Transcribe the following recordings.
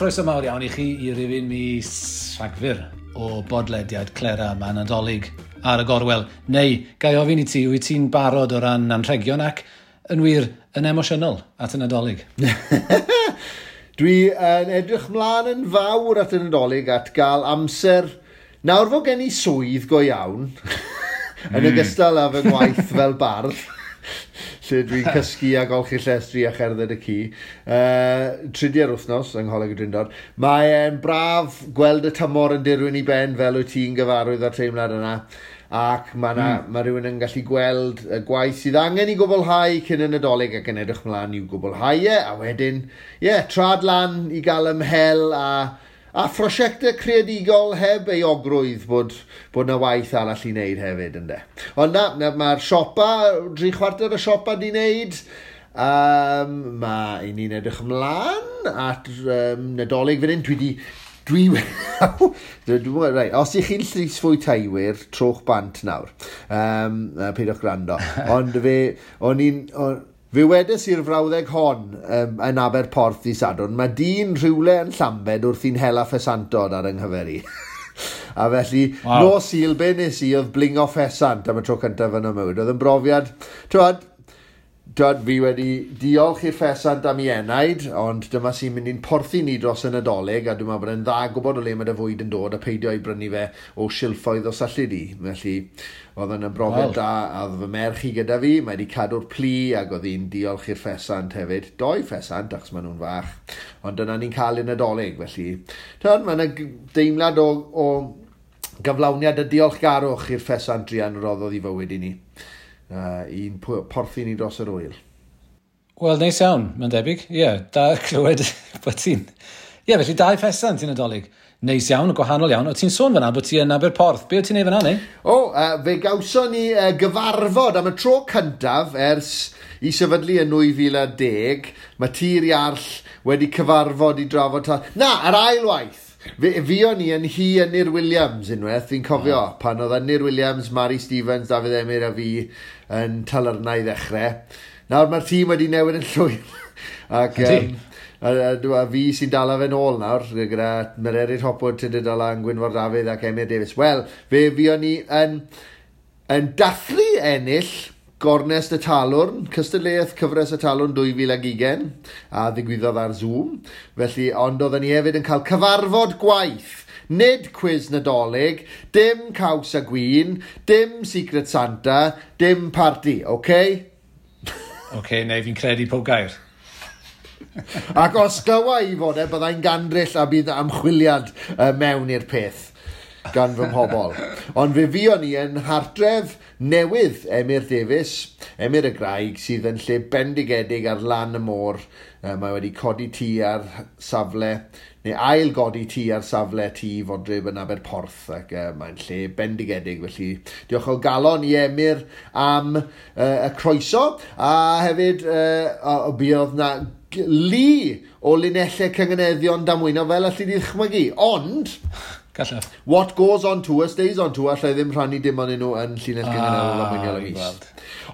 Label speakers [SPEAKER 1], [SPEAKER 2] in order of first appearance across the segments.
[SPEAKER 1] chroeso mawr iawn i chi i rifyn mis Rhagfyr o bodlediad Clera yma Nadolig ar y gorwel. Neu, ga i ofyn i ti, wyt ti'n barod o ran anrhegion ac, yn wir, yn emosiynol at y Nadolig?
[SPEAKER 2] Dwi yn edrych mlaen yn fawr at y Nadolig, at gael amser. Nawr fod gen i swydd go iawn, yn ogystal â fy ngwaith fel bardd, lle dwi'n cysgu a golchi llestri a cherdded y ci, tridiau'r wythnos yng Ngholeg y Drindod. Mae'n braf gweld y tymor yn dirwyn i ben fel wyt ti'n gyfarwydd â'r teimlad yna, ac mae ma rhywun yn gallu gweld y gwaith sydd angen i gwblhau cyn y Nadolig ac yn edrych mlaen i'w gwblhau e, a wedyn, ie, yeah, trad lan i gael ymhel a phrosiectau creadigol heb euogrwydd bod 'na waith arall i wneud hefyd, ynde. Ond na, mae'r siopa, 3/4 y siopa di wneud. Mae i ni'n edrych ymlaen at Nadolig fan hyn. Dwi di... Dwi... dwi right, os ych chi'n llysfwytaiwyr, trowch bant nawr. Peidiwch gwrando. Ond fe... O'n i'n... Fe wedes i'r frawddeg hon yn Aberporth i Sadwrn, mae dyn rhywle yn Llambed wrth i'n hela ffesantod ar yng nghyfer i. A felly, nos Sul, be nes i oedd blingo ffesant am y tro cyntaf yn y mywyd. Oedd yn brofiad, t'wod, fi wedi diolch i'r ffesant am ei enaid, ond dyma sy'n mynd i'n porthi ni dros y Nadolig, a dwi'n meddwl bod e'n dda gwybod o le mae dy fwyd yn dod a peidio i brynu fe o silffoedd os allu di. Felly, oedd yn brofiad da, a oedd fy merch i gyda fi, mae wedi cadw'r plu, ac oedd hi'n diolch i'r ffesant hefyd. Doi ffesant, achos maen nhw'n fach, ond dyna ni'n cael y Nadolig, felly. T'wod, mae yna deimlad o gyflawniad y diolchgarwch i'r ffesant druan roddodd i fywyd i ni. I'n porthi ni dros yr wyl.
[SPEAKER 1] Wel, neis iawn, mae'n debyg. Ie, yeah, da clywed bod ti'n... Ie, yeah, felly dau ffesant i'n Nadolig. Neis iawn, gwahanol iawn. O, ti'n sôn fyna bod ti yn Aberporth. Be o ti'n neud fyna, neu?
[SPEAKER 2] O, fe gawson ni gyfarfod am y tro cyntaf ers i sefydlu yn 2010. Mae Tir Iarll wedi cyfarfod i drafod... Na, yr ail waith! Fe fuon ni yn hi Ynyr Williams unwaith, fi'n cofio, pan oedd Ynyr Williams, Mari Stevens, Dafydd Emyr a fi yn Talyrnau i ddechrau. Nawr mae'r tîm wedi newid yn llwyr. Ac, a fi sy'n dala fe nôl nawr, gyda Mererid Hopwood, Tudur Dylan, Gwynfor Dafydd ac Emyr Davies. Wel, fe fuon ni yn dathlu ennill Gornest y Talwrn, cystadleuaeth cyfres y Talwrn 2020, a ddigwyddodd ar Zoom. Felly, ond oedden ni hefyd yn cael cyfarfod gwaith. Nid cwis Nadolig, dim caws a gwin, dim Secret Santa, dim party, oce?
[SPEAKER 1] Oce, neu fi'n credu pob gair.
[SPEAKER 2] Ac os glywa i fod e, byddai'n gandryll a bydd ymchwiliad mewn i'r peth gan fy mhobol. Ond fe fuon ni yn hartref newydd Emyr Davies, Emyr y Graig, sydd yn lle bendigedig ar lan y môr. Mae wedi codi tŷ ar safle, neu ail godi tŷ ar safle tŷ Fodryb yn Aberporth, ac mae'n lle bendigedig. Felly diolch o galon i Emyr am y croeso, a hefyd buodd na lu o linellau cynganeddion damwynol fel allu di ddychmygu, ond...
[SPEAKER 1] Gallaf.
[SPEAKER 2] What goes on tour stays on tour, allai ddim rhannu dim ond nhw yn llinell gynganeddol ddamweiniol y mis.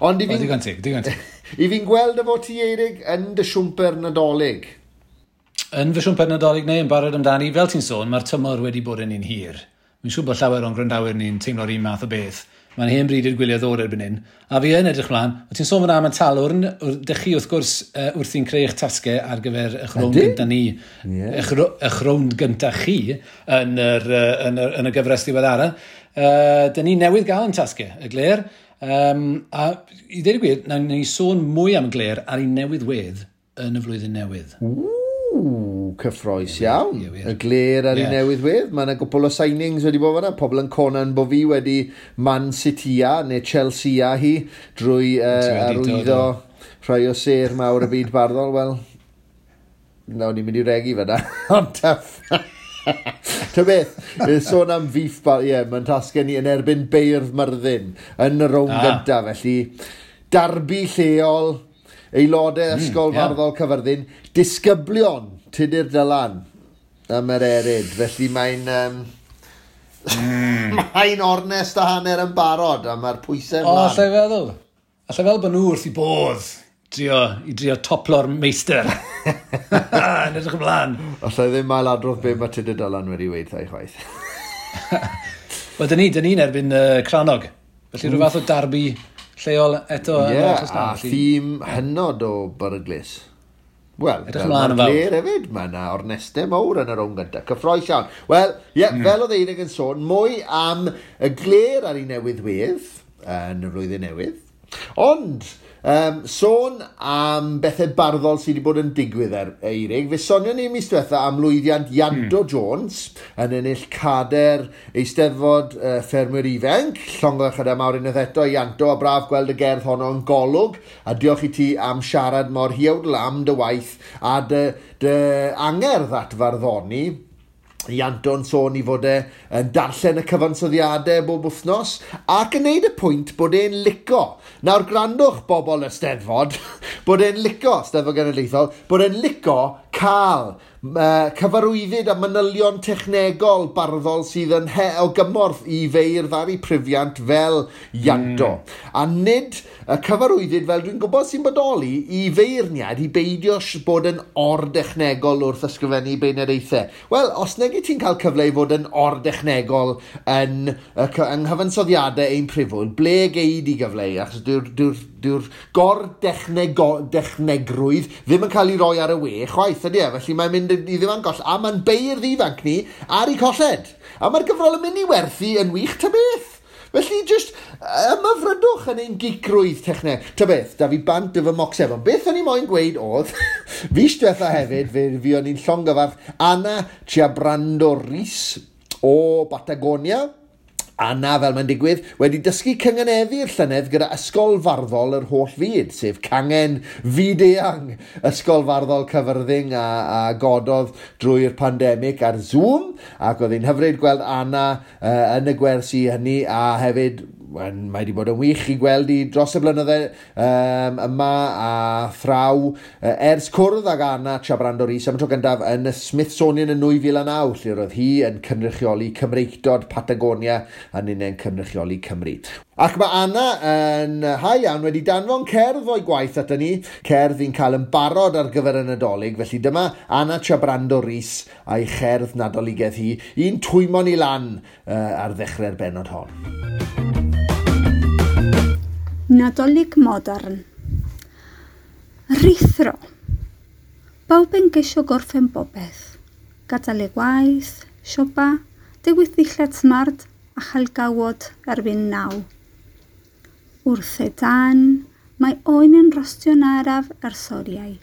[SPEAKER 2] Ond i
[SPEAKER 1] fi'n... Digon teg, digon teg.
[SPEAKER 2] I fi'n gweld efo ti, Eirig, yn dy siwmper Nadolig.
[SPEAKER 1] Yn fy siwmper Nadolig neu yn barod amdani, fel ti'n sôn, mae'r tymor wedi bod yn un hir. Mi'n siŵr bod llawer o'n gwrandawyr ni'n teimlo'r un math o beth. Mae'n hen bryd i'r gwyliau ddod erbyn hyn. A fi yn edrych mlaen. O ti'n sôn fyna am y Talwrn, dych chi wrth gwrs wrthi'n creu eich tasgau ar gyfer eich rownd gynta ni, eich rownd gynta chi yn y gyfres ddiweddara. Dyn ni newydd gael yn tasgau, y Gler. A i ddweud y gwir, nawn ni sôn mwy am y Gler ar ei newydd wedd yn y flwyddyn newydd.
[SPEAKER 2] Ww, cyffrous iawn.
[SPEAKER 1] Ie, wir.
[SPEAKER 2] Y Gler ar ei newydd wedd. Mae yna gwpl o signings wedi bod fan'na. Pobl yn conan bo fi wedi Man City-a neu Chelsea-a hi drwy,
[SPEAKER 1] Ti wedi dod
[SPEAKER 2] arwyddo
[SPEAKER 1] o.
[SPEAKER 2] rhai o sêr mawr y byd barddol. Wel, nawn ni'n mynd i regi fan'na. Ond tough. Ta beth, sôn am beef, ie, mae'n tasgau ni yn erbyn Beirdd Myrddin yn y rownd gyntaf. Felly, darbi lleol, aelodau Ysgol Farddol Caerfyrddin, disgyblion Tudur Dylan am yr erid. Felly mae'n ornest a hanner yn barod a mae'r pwysau
[SPEAKER 1] O,
[SPEAKER 2] mlaen.
[SPEAKER 1] allai feddwl. Allai feddwl bod nhw wrth i bodd i drio toplo'r meistr. Yn edrych ymlaen.
[SPEAKER 2] Alla i ddim ailadrodd be mae Tudur Dylan wedi weud 'tha i chwaith.
[SPEAKER 1] Wel, dyn ni'n erbyn Crannog. Felly rhyw fath o darbi lleol eto.
[SPEAKER 2] Ie, yeah, a thîm hynod o beryglus. Wel,
[SPEAKER 1] edrych ymlaen yn fawr.
[SPEAKER 2] Glir hefyd, mae yna ornestau mawr yn y rownd gyntaf. Cyffroes iawn. Wel, ie, yeah, fel oedd Eirig yn sôn, mwy am y Glêr ar ei newydd wedd yn y flwyddyn newydd. Ond, sôn am bethau barddol sydd wedi bod yn digwydd ar Eirig, fe sonion ni mis diwetha am lwyddiant Ianto Jones yn ennill cader Eisteddfod Ffermwyr Ifanc. Llongyfarchiadau mawr unwaith eto Ianto, a braf gweld y gerdd honno yn Golwg, a diolch i ti am siarad mor huawdl am dy waith a dy angerdd at farddoni. Ianto'n sôn i fod e yn darllen y cyfansoddiadau bob wythnos ac yn neud y pwynt bod e'n lico. Nawr gwrandwch bobl y Steddfod, bod e'n lico, Steddfod Genedlaethol, bod e'n lico cael cyfarwyddyd a manylion technegol barddol sydd yn o gymorth i feirdd ar eu prifiant fel Ianto. A nid y cyfarwyddyd, fel dwi'n gwybod sy'n bodoli, i feirniad i beidio bod yn or-dechnegol wrth ysgrifennu beirniadaethau. Wel, os nag ti'n cael cyfle i fod yn or-dechnegol yn nghyfansoddiadau ein prifwyl, ble gei di gyfle i? Achos dyw'r gor-dechnegrwydd ddim yn cael ei roi ar y we chwaith, ydy e? Felly mae'n mynd i ddim yn goll, a mae'n beirdd ifanc ni ar ei colled. A mae'r gyfrol yn mynd i werthu yn wych ta beth. Felly, just ymhyfrydwch yn ein gicrwydd techneg. Ta beth, da fi bant y fy mocsef. Ond beth o'n i moyn gweud oedd, fis diwetha hefyd, fi o'n i'n llongyfarch Anna Chiabrando Rhys o Batagonia. Anna, fel mae'n digwydd, wedi dysgu cynganeddu'r llynedd gyda Ysgol Farddol yr Holl Fyd, sef cangen fyd-eang Ysgol Farddol Cyfyrddin a gododd drwy'r pandemig ar Zoom, ac oedd hi'n hyfryd gweld Anna yn y gwersi hynny, a hefyd mae wedi bod yn wych i gweld i dros y blynydde yma a thraw ers cwrdd ag Anna Chiabrando Rhys am y tro gyntaf yn y Smithsonian yn 2009, lle roedd hi yn cynrychioli Cymreictod Patagonia a ninnau'n cynrychioli Cymru. Ac mae Anna yn ha iawn wedi danfon cerdd o'i gwaith ato ni, cerdd i'n cael yn barod ar gyfer y Nadolig, felly dyma Anna Chiabrando Rhys a'i cherdd Nadoligaidd hi, un twymo ni lan ar ddechrau'r bennod hon.
[SPEAKER 3] Nadolig modern. Rhuthro. Bawb yn geisio gorffen bopeth. Gadael ei gwaith, siopa, dewis ddillad smart a chael gawod erbyn 9. Wrth y dan, mae oen yn rostio'n araf ers oriau,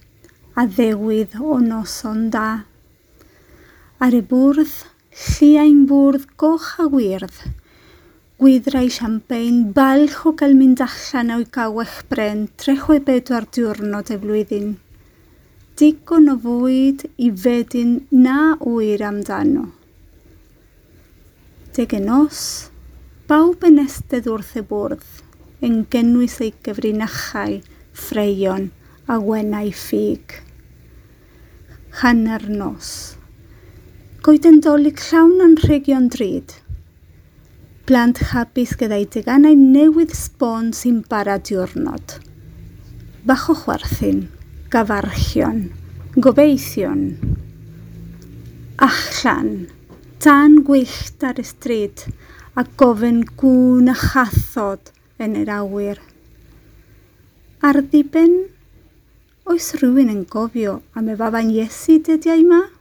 [SPEAKER 3] a ddewydd o noson da. Ar y bwrdd, lliain bwrdd goch a wyrdd, gwydrau siampên, balch o gael mynd allan o'i gawell bren 364 diwrnod y flwyddyn. Digon o fwyd i fedyn na ŵyr amdano. Deg y nos, bawb yn estedd wrth y bwrdd, yn gynnwys ei gyfrinachau, ffreion a wenau ffug. Hanner nos. Goeden Dolig llawn anrhegion drud. Plant hapus gyda'i teganau newydd sbon sy'n bara diwrnod. Bach o chwerthin, gafarchion, gobeithion. Allan, tân gwyllt ar y stryd a gofyn gŵn a chathod yn yr awyr. Ar ddiben, oes rhywun yn gofio am y faban Iesu dyddiau yma?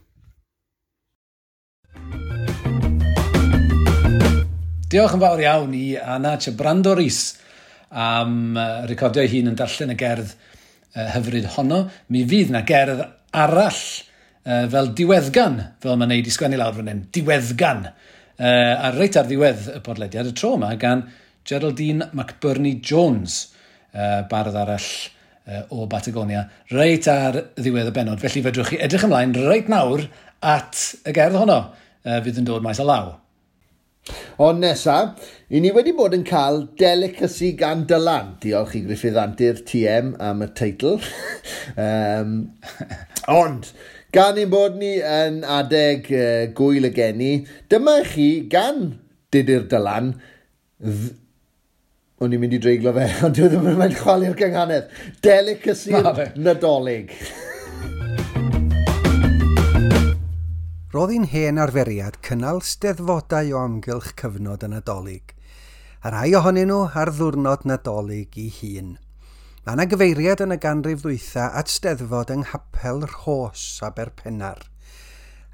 [SPEAKER 1] Diolch yn fawr iawn i Anna Chiabrando Rhys am recordio ei hun yn darllen y gerdd hyfryd honno. Mi fydd na gerdd arall fel diweddgan, fel mae'n neud i sgwennu lawr fan hyn, diweddgan. A reit ar ddiwedd y podlediad y tro yma gan Geraldine McBurney Jones, bardd arall o Batagonia, reit ar ddiwedd y bennod. Felly fedrwch chi edrych ymlaen reit nawr at y gerdd honno fydd yn dod maes o law.
[SPEAKER 2] Ond nesa, i ni wedi bod yn cael delicacy gan Dylan. Diolch i Gruffydd Antur TM am y teitl. Ond, gan ein bod ni yn adeg gwyl y geni, dyma chi gan Tudur Dylan, o'n i'n mynd i dreiglo fe, ond dwi ddim yn mynd chwalu'r gynghanedd. Delicacy Nadolig.
[SPEAKER 4] Roedd hi'n hen arferiad cynnal steddfodau o amgylch cyfnod y Nadolig, a rhai ohonyn nhw ar ddiwrnod Nadolig ei hun. Mae yna gyfeiriad yn y ganrif ddwytha at steddfod yng Nghapel Rhos, Aberpennar.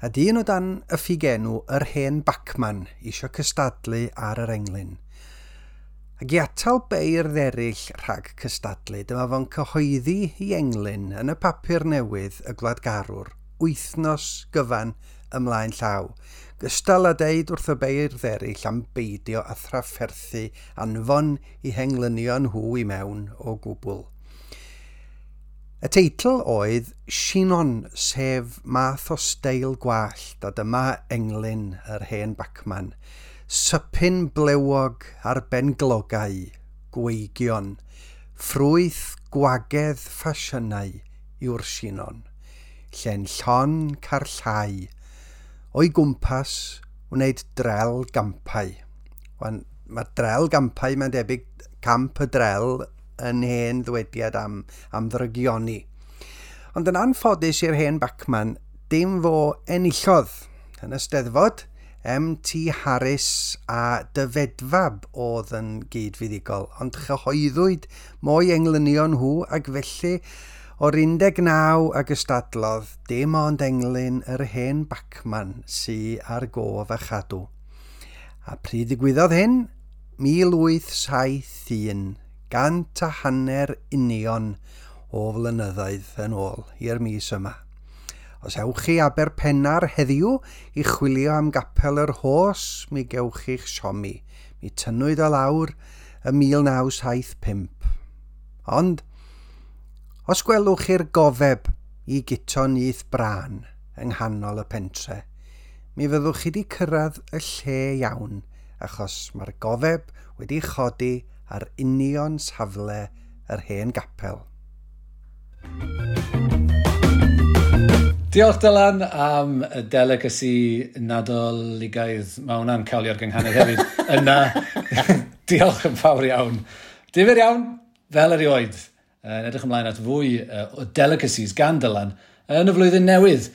[SPEAKER 4] A dyn o dan y ffugenw yr hen Bacman isio cystadlu ar yr englyn. Ac i atal beirdd eraill rhag cystadlu, dyma fo'n cyhoeddi i englyn yn y papur newydd y Gwladgarwr wythnos gyfan ymlaen llaw. Gystal â deud wrth y beirdd eraill am beidio â thrafferthu anfon i henglynion nhw i mewn o gwbl. Y teitl oedd Sinon, sef math o steil gwallt, a dyma englyn yr hen Bacman. Sypyn blewog ar benglogau, gweigion, ffrwyth gwagedd ffasiynau yw'r Sinon. Lle'n llon carllau, o'i gwmpas wneud drel gampau. Wan, mae drel gampau, mae'n debyg camp y drel yn hen ddwediad am ddrygioni. Ond yn anffodus i'r hen Bacman, dim fo enillodd. Yn y steddfod, M.T. Harris a Dyfedfab oedd yn gyd-fuddugol, ond chyhoeddwyd mwy englynion nhw ac felly o'r 19 a gystadlodd, dim ond englyn yr hen Bacman sy ar gof a chadw. A pryd ddigwyddodd hyn? 1871, 150 union o flynyddoedd yn ôl i'r mis yma. Os ewch chi Aberpennar heddiw i chwilio am gapel yr Rhos, mi gewch chi'ch siomi. Mi tynnwyd o lawr ym 1975. Ond, os gwelwch chi'r gofeb i Guto Nyth Brân yng nghanol y pentre, mi fyddwch chi wedi cyrraedd y lle iawn, achos mae'r gofeb wedi chodi ar union safle yr hen gapel.
[SPEAKER 1] Diolch Dylan am y delicacy Nadoligaidd. Mae hwnna'n cawlio'r gynghanedd hefyd. Yna, diolch yn fawr iawn. Difyr iawn, fel erioed. Yn edrych ymlaen at fwy o delicacies gan Dylan yn y flwyddyn newydd.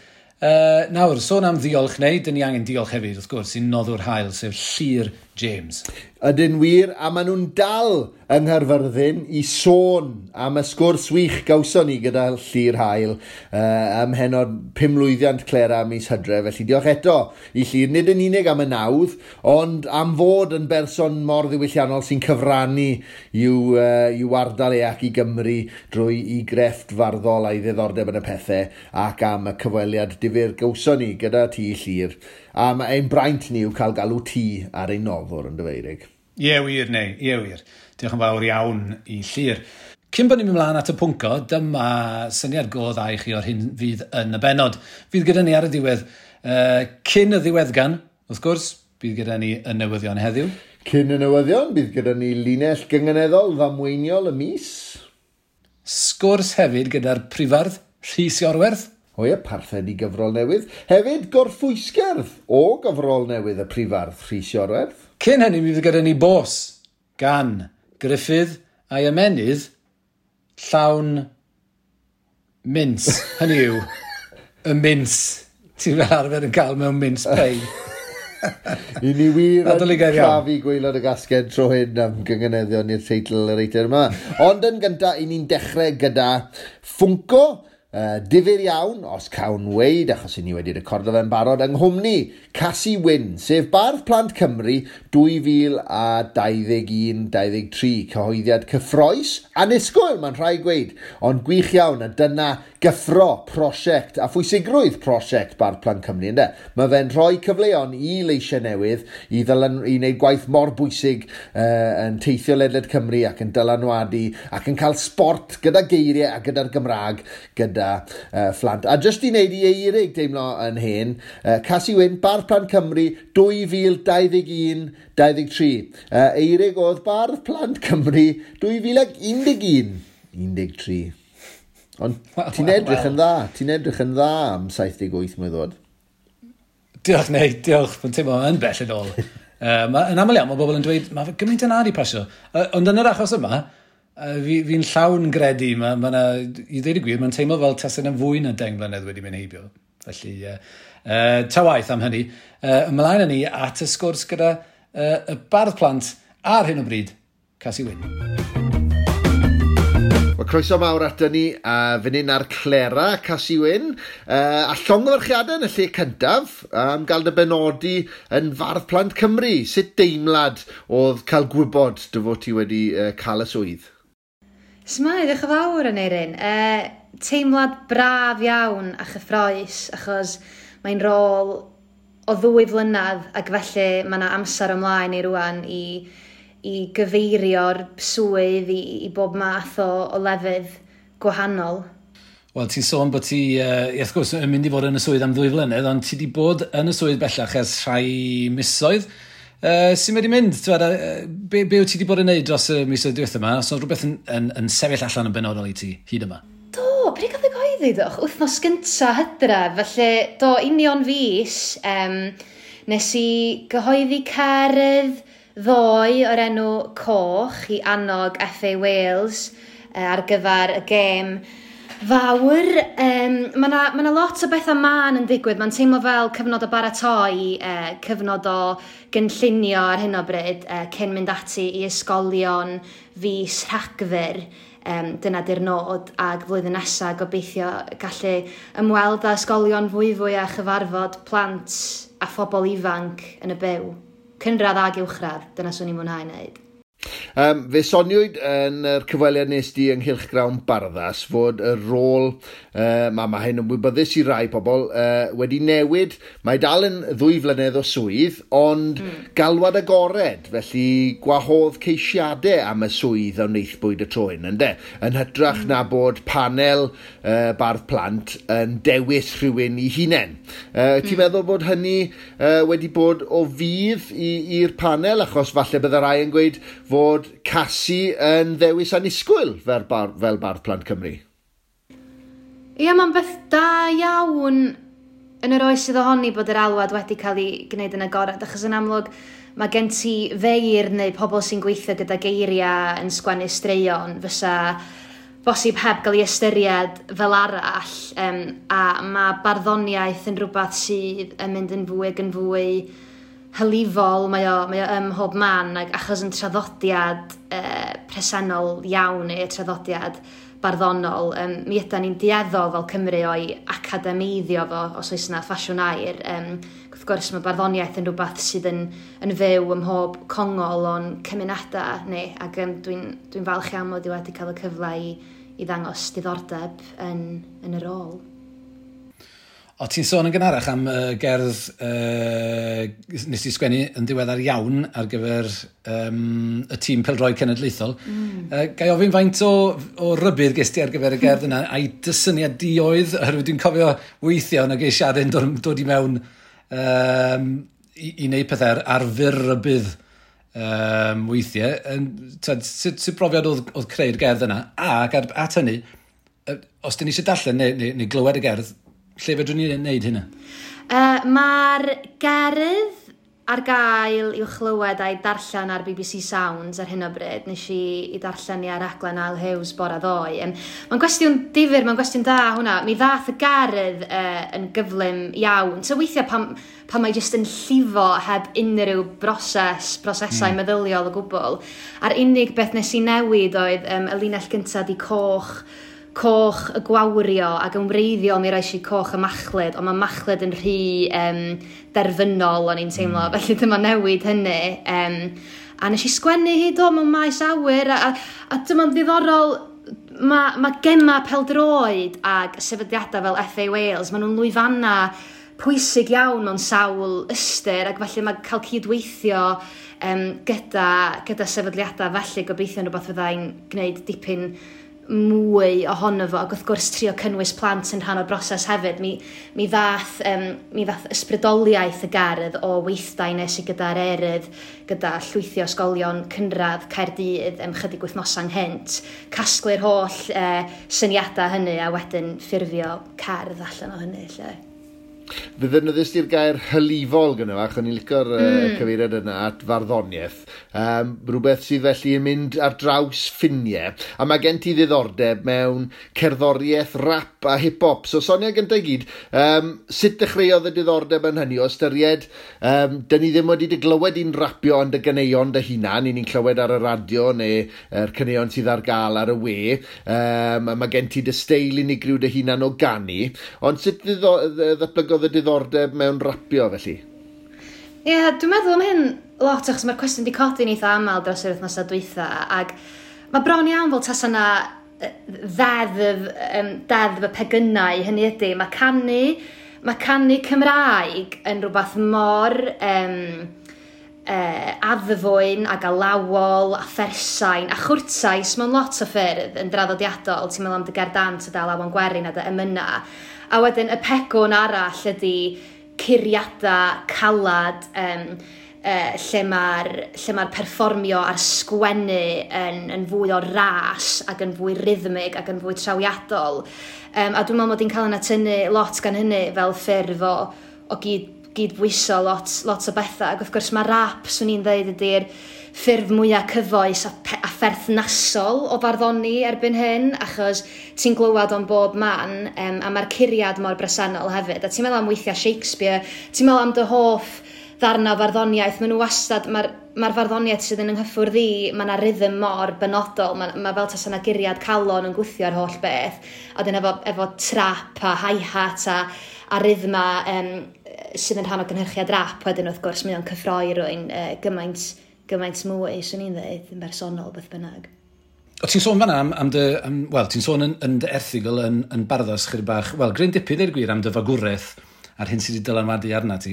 [SPEAKER 1] Nawr, sôn am ddiolch neu, dyn ni angen diolch hefyd, wrth gwrs, i'n noddwr hael, sef Llyr James.
[SPEAKER 2] Ydyn wir, a maen nhw'n dal yng Nghaerfyrddin i sôn am y sgwrs wych gawson ni gyda Llyr Hael ym mhennod 5 mlwyddiant Clera mis Hydref. Felly diolch eto i Llyr, nid yn unig am y nawdd, ond am fod yn berson mor ddiwylliannol sy'n cyfrannu i'w ardal e ac i Gymru drwy i grefft farddol a'i ddiddordeb yn y pethau ac am y cyfweliad difyr gawson ni gyda ti, Llyr. A mae ein braint ni yw cael galw ti ar ein noddwr yn dyfeirig.
[SPEAKER 1] Ie wir, neu, ie wir. Diolch yn fawr iawn i Llyr. Cyn bod ni'n mynd mlaen at y pwnco, dyma syniad go dda i chi o'r hyn fydd yn y bennod. Fydd gyda ni ar y diwedd, cyn y ddiweddgan, wrth gwrs, bydd gyda ni y newyddion heddiw.
[SPEAKER 2] Cyn y newyddion, bydd gyda ni linell gynganeddol ddamweiniol y mis.
[SPEAKER 1] Sgwrs hefyd gyda'r prifardd Rhys Iorwerth.
[SPEAKER 2] O ie, parthed i gyfrol newydd. Hefyd, gorffwysgerdd o gyfrol newydd y prifardd Rhys Iorwerth.
[SPEAKER 1] Cyn hynny, mi fydd gyda ni bos gan Gruffydd a'i ymenydd llawn mince. Hynny yw, y mince ti'n fel arfer yn cael mewn mince pie.
[SPEAKER 2] I ni wir yn
[SPEAKER 1] Nadoligaidd iawn.
[SPEAKER 2] crafu gwaelod y gasged tro hyn am gynganeddion i'r teitl yr eitem yma. Ond yn gyntaf, i ni'n dechrau gyda Funko, difyr iawn, os cawn weud, achos i ni wedi recordo fe'n barod, yng nghwmni Casi Wyn, sef Bardd Plant Cymru 2021-23, cyhoeddiad cyffrous, annisgwyl, mae'n rhaid gweud, ond gwych iawn, a dyna gyffro prosiect a phwysigrwydd prosiect Bardd Plant Cymru, ynde? Mae fe'n rhoi cyfleon i leisiau newydd i wneud gwaith mor bwysig yn teithio ledled Cymru ac yn dylanwadu ac yn cael sport gyda geiriau a gyda'r Gymraeg gyda phlant. A jyst i wneud i Eirig deimlo yn hen, Casi Wyn, Bardd Plant Cymru 2021-23. Eirig oedd Bardd Plant Cymru 2011 13. Ond ti'n edrych yn dda, ti'n edrych yn dda am 78 mlynedd oed.
[SPEAKER 1] Diolch, neu, diolch. Mae'n teimlo yn bell yn ôl. Yn aml iawn, mae bobl yn dweud, mae gymaint yn di pasio. Ond yn yr achos yma, fi'n llawn gredu, ma na, i ddweud y gwir, mae'n teimlo fel tasen yn fwy na 10 mlynedd wedi mynd heibio. Felly, ta waith am hynny. Ymlaen â ni at y sgwrs gyda y bardd plant ar hyn o bryd, Casi Wyn.
[SPEAKER 2] Wel, croeso mawr ato ni, a fan hyn ar Clera, Casi Wyn, a llongyfarchiadau yn y lle cyntaf am gael dy benodi yn Fardd Plant Cymru. Sut deimlad oedd cael gwybod dy fod ti wedi cael y swydd?
[SPEAKER 5] S'mae, diolch yn fawr, Aneirin. Teimlad braf iawn a chyffrous, achos mae'n rôl o 2 flynedd, ac felly mae yna amser ymlaen i rwan i gyfeirio'r swydd i bob math o lefydd gwahanol.
[SPEAKER 1] Wel, ti'n sôn bod ti, wrth gwrs, yn mynd i fod yn y swydd am 2 flynedd, ond ti wedi bod yn y swydd bellach ers rhai misoedd. Sy'n wedi mynd? Be wyt ti wedi bod yn neud dros y misoedd diwethaf yma? Os oedd rhywbeth yn sefyll allan yn benodol i ti hyd yma?
[SPEAKER 5] Do, pryd gath ei gyhoeddi, doch? Wythnos gynta Hydref, felly do, union fis, nes i gyhoeddi cerdd ddoe o'r enw Coch i annog FA Wales ar gyfer y gêm fawr. Mae 'na lot o bethau mân yn digwydd. Mae'n teimlo fel cyfnod o baratoi, cyfnod o gynllunio ar hyn o bryd, cyn mynd ati i ysgolion fis Rhagfyr. Dyna di'r nod, ac flwyddyn nesaf gobeithio gallu ymweld â ysgolion fwyfwy a chyfarfod plant a phobl ifanc yn y byw. Cynradd ag uwchradd, dyna swn i'n mwynhau wneud.
[SPEAKER 2] Fe soniwyd yn yr cyfweliad nes di ynghylch Grawn Barddas fod y rôl, mae hyn yn wybyddus i rai pobl, wedi newid. Mae dal yn 2 flynedd o swydd, ond galwad agored, felly gwahodd ceisiadau am y swydd a wnaethpwyd y tro hyn, ynde? Yn hytrach na bod panel bardd plant yn dewis rhywun i hunain. Ti'n meddwl bod hynny wedi bod o fudd i'r panel, achos falle bydde rai yn gweud fod Casi yn ddewis annisgwyl fel Bardd Plant Cymru?
[SPEAKER 5] Ie, mae'n beth da iawn yn yr oes sydd ohoni bod yr alwad wedi cael ei gwneud yn agored, achos yn amlwg mae gen ti feir neu pobl sy'n gweithio gyda geiriau yn sgwennu straeon fysa bosib heb gael ei ystyried fel arall, a mae barddoniaeth yn rhywbeth sydd yn mynd yn fwy ac yn fwy hylifol, mae o ym mhob man, ac achos yn traddodiad presennol iawn neu traddodiad barddonol, mi ydan ni'n dueddol fel Cymru o'i academeiddio fo, os oes yna ffasiwn air. Wrth gwrs mae barddoniaeth yn rhywbeth sydd yn fyw ym mhob congol o'n cymunedau ni, ac dwi'n falch iawn mod i wedi cael y cyfle i ddangos diddordeb yn y rôl.
[SPEAKER 1] O, ti'n sôn yn gynharach am gerdd nes i sgwennu yn ddiweddar iawn ar gyfer y tîm pêl-droed cenedlaethol. Ga i ofyn faint o rybudd ges ti ar gyfer y gerdd yna, a'i dysyniad di oedd, oherwydd dwi'n cofio weithio yn y geisiadau'n dod i mewn i wneud pethau ar fyr rybudd weithiau. Sut brofiad oedd creu'r gerdd yna? Ac at hynny, os dyn ni eisiau darllen neu glywed y gerdd, lle fedrwn ni wneud hynna?
[SPEAKER 5] Mae'r gerdd ar gael i'w chlywed a'i darllen ar BBC Sounds ar hyn o bryd. Nes i darllen i ar raglen Al Hughes bore ddoe. Mae'n gwestiwn difyr, mae'n gwestiwn da hwnna. Mi ddath y gerdd yn gyflym iawn. So weithiau pan mae jyst yn llifo heb unrhyw brosesau meddyliol o gwbl. A'r unig beth nes i newid oedd y linell gyntaf di coch y gwawrio, ac yn wreiddiol mi roes i coch y machlud, ond mae machlud yn rhy derfynol o'n i'n teimlo, felly dyma newid hynny. A nes i sgwennu hi do mewn maes awyr, a dyma'n ddiddorol, mae gemau pêl-droed ag sefydliadau fel FA Wales, maen nhw'n lwyfannau pwysig iawn mewn sawl ystyr, ac felly mae cael cydweithio gyda sefydliadau felly gobeithio yn rhywbeth fyddai'n gwneud dipyn mwy ohono fo, ac wrth gwrs trio cynnwys plant yn rhan o'r broses hefyd. Mi ddath ysbrydoliaeth y gerdd o weithdai nes i gyda'r Erydd, gyda llwythi o ysgolion cynradd Caerdydd chydig wythnosau ynghynt, casglu'r holl syniadau hynny a wedyn ffurfio cerdd allan o hynny. Lle.
[SPEAKER 2] Fe ddefnyddiais di'r gair hylifol gyda fach, o'n i'n licio'r cyfeiriad yna at farddoniaeth. Rhywbeth sydd felly yn mynd ar draws ffiniau. A mae gen ti ddiddordeb mewn cerddoriaeth, rap a hip-hop. So sonia gyntaf i gyd, sut dechreuodd y diddordeb yn hynny o ystyried, dyn ni ddim wedi dy glywed i'n rapio ond y ganeuon dy hunan, i ni'n clywed ar y radio neu'r caneuon sydd ar gael ar y we. Mae gen ti dy steil unigryw dy hunan o ganu. Ond sut ddatblygodd y diddordeb mewn rapio felly?
[SPEAKER 5] Ie, yeah, dwi'n meddwl am hyn lot achos mae'r cwestiwn wedi codi'n eitha aml dros yr wythnosau dwytha ac mae bron iawn fel tasa yna ddeddf y pegynau, hynny ydy, mae canu Cymraeg yn rhywbeth mor addfwyn ac alawol a phersain a chwrtais mewn lot o ffyrdd yn draddodiadol. Ti'n meddwl am dy gerdant a dy alawon gwerin a dy emyna. A wedyn y pegwn arall ydy curiadau calad lle mae'r perfformio a'r sgwennu yn fwy o ras ac yn fwy rhythmig ac yn fwy trawiadol. A dwi'n meddwl mod i'n cael yna tynnu lot gan hynny fel ffurf o gydbwyso lot o bethau. Ac wrth gwrs mae rap, swn i'n dweud, ydy'r ffurf mwyaf cyfoes a pherthnasol o farddoni erbyn hyn, achos ti'n glywed o'n bob man, a mae'r curiad mor bresennol hefyd. A ti'n meddwl am weithiau Shakespeare, ti'n meddwl am dy hoff ddarna o farddoniaeth, maen nhw wastad, mae'r farddoniaeth sydd yn ynghyffwrdd i, mae yna rhythm mor benodol, mae fel tasa yna guriad calon yn gwthio'r holl beth, a dyn efo trap a hi-hat a rhythma sydd yn rhan o gynhyrchiad rap, wedyn wrth gwrs mae o'n cyffroi rwy'n gymaint mwy, swn i'n dweud, yn bersonol, beth bynnag.
[SPEAKER 1] O, ti'n sôn fan'na am dy... Wel, ti'n sôn yn dy erthygl yn Barddas chydig bach, wel, gryn dipyn i'r gwir am dy fagwraeth a'r hyn sydd wedi dylanwadu arna ti.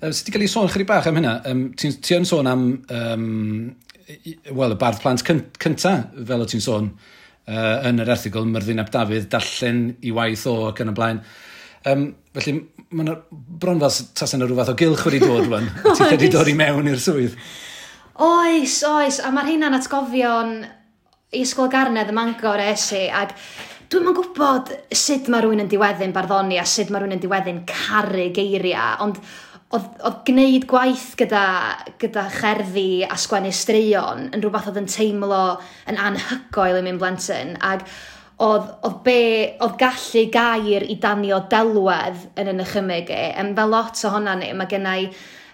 [SPEAKER 1] Sut ti gael ei sôn chydig bach am hynna? Ti yn sôn am, wel, y bardd plant cynta, fel o ti'n sôn yn yr erthygl, Myrddin ap Dafydd, darllen i waith o ac yn y blaen. Felly, mae'n bron fel tasa yna rhyw fath o gylch wedi dod rwan. Ti'n wedi dod i mewn i'r swydd.
[SPEAKER 5] Oes, a mae'r hynna'n atgofion i Ysgol Garnedd ym Mangor es i, ac dwi'm yn gwybod sut mae rhywun yn diweddu'n barddoni a sut mae rhywun yn diweddu'n caru geiriau, ond oedd gwneud gwaith gyda cherddi a sgwennu straeon yn rhywbeth oedd yn teimlo yn anhygoel i mi'n blentyn, ac oedd gallu gair i danio delwedd yn y nychymyg i, fel lot ohona ni, mae gennau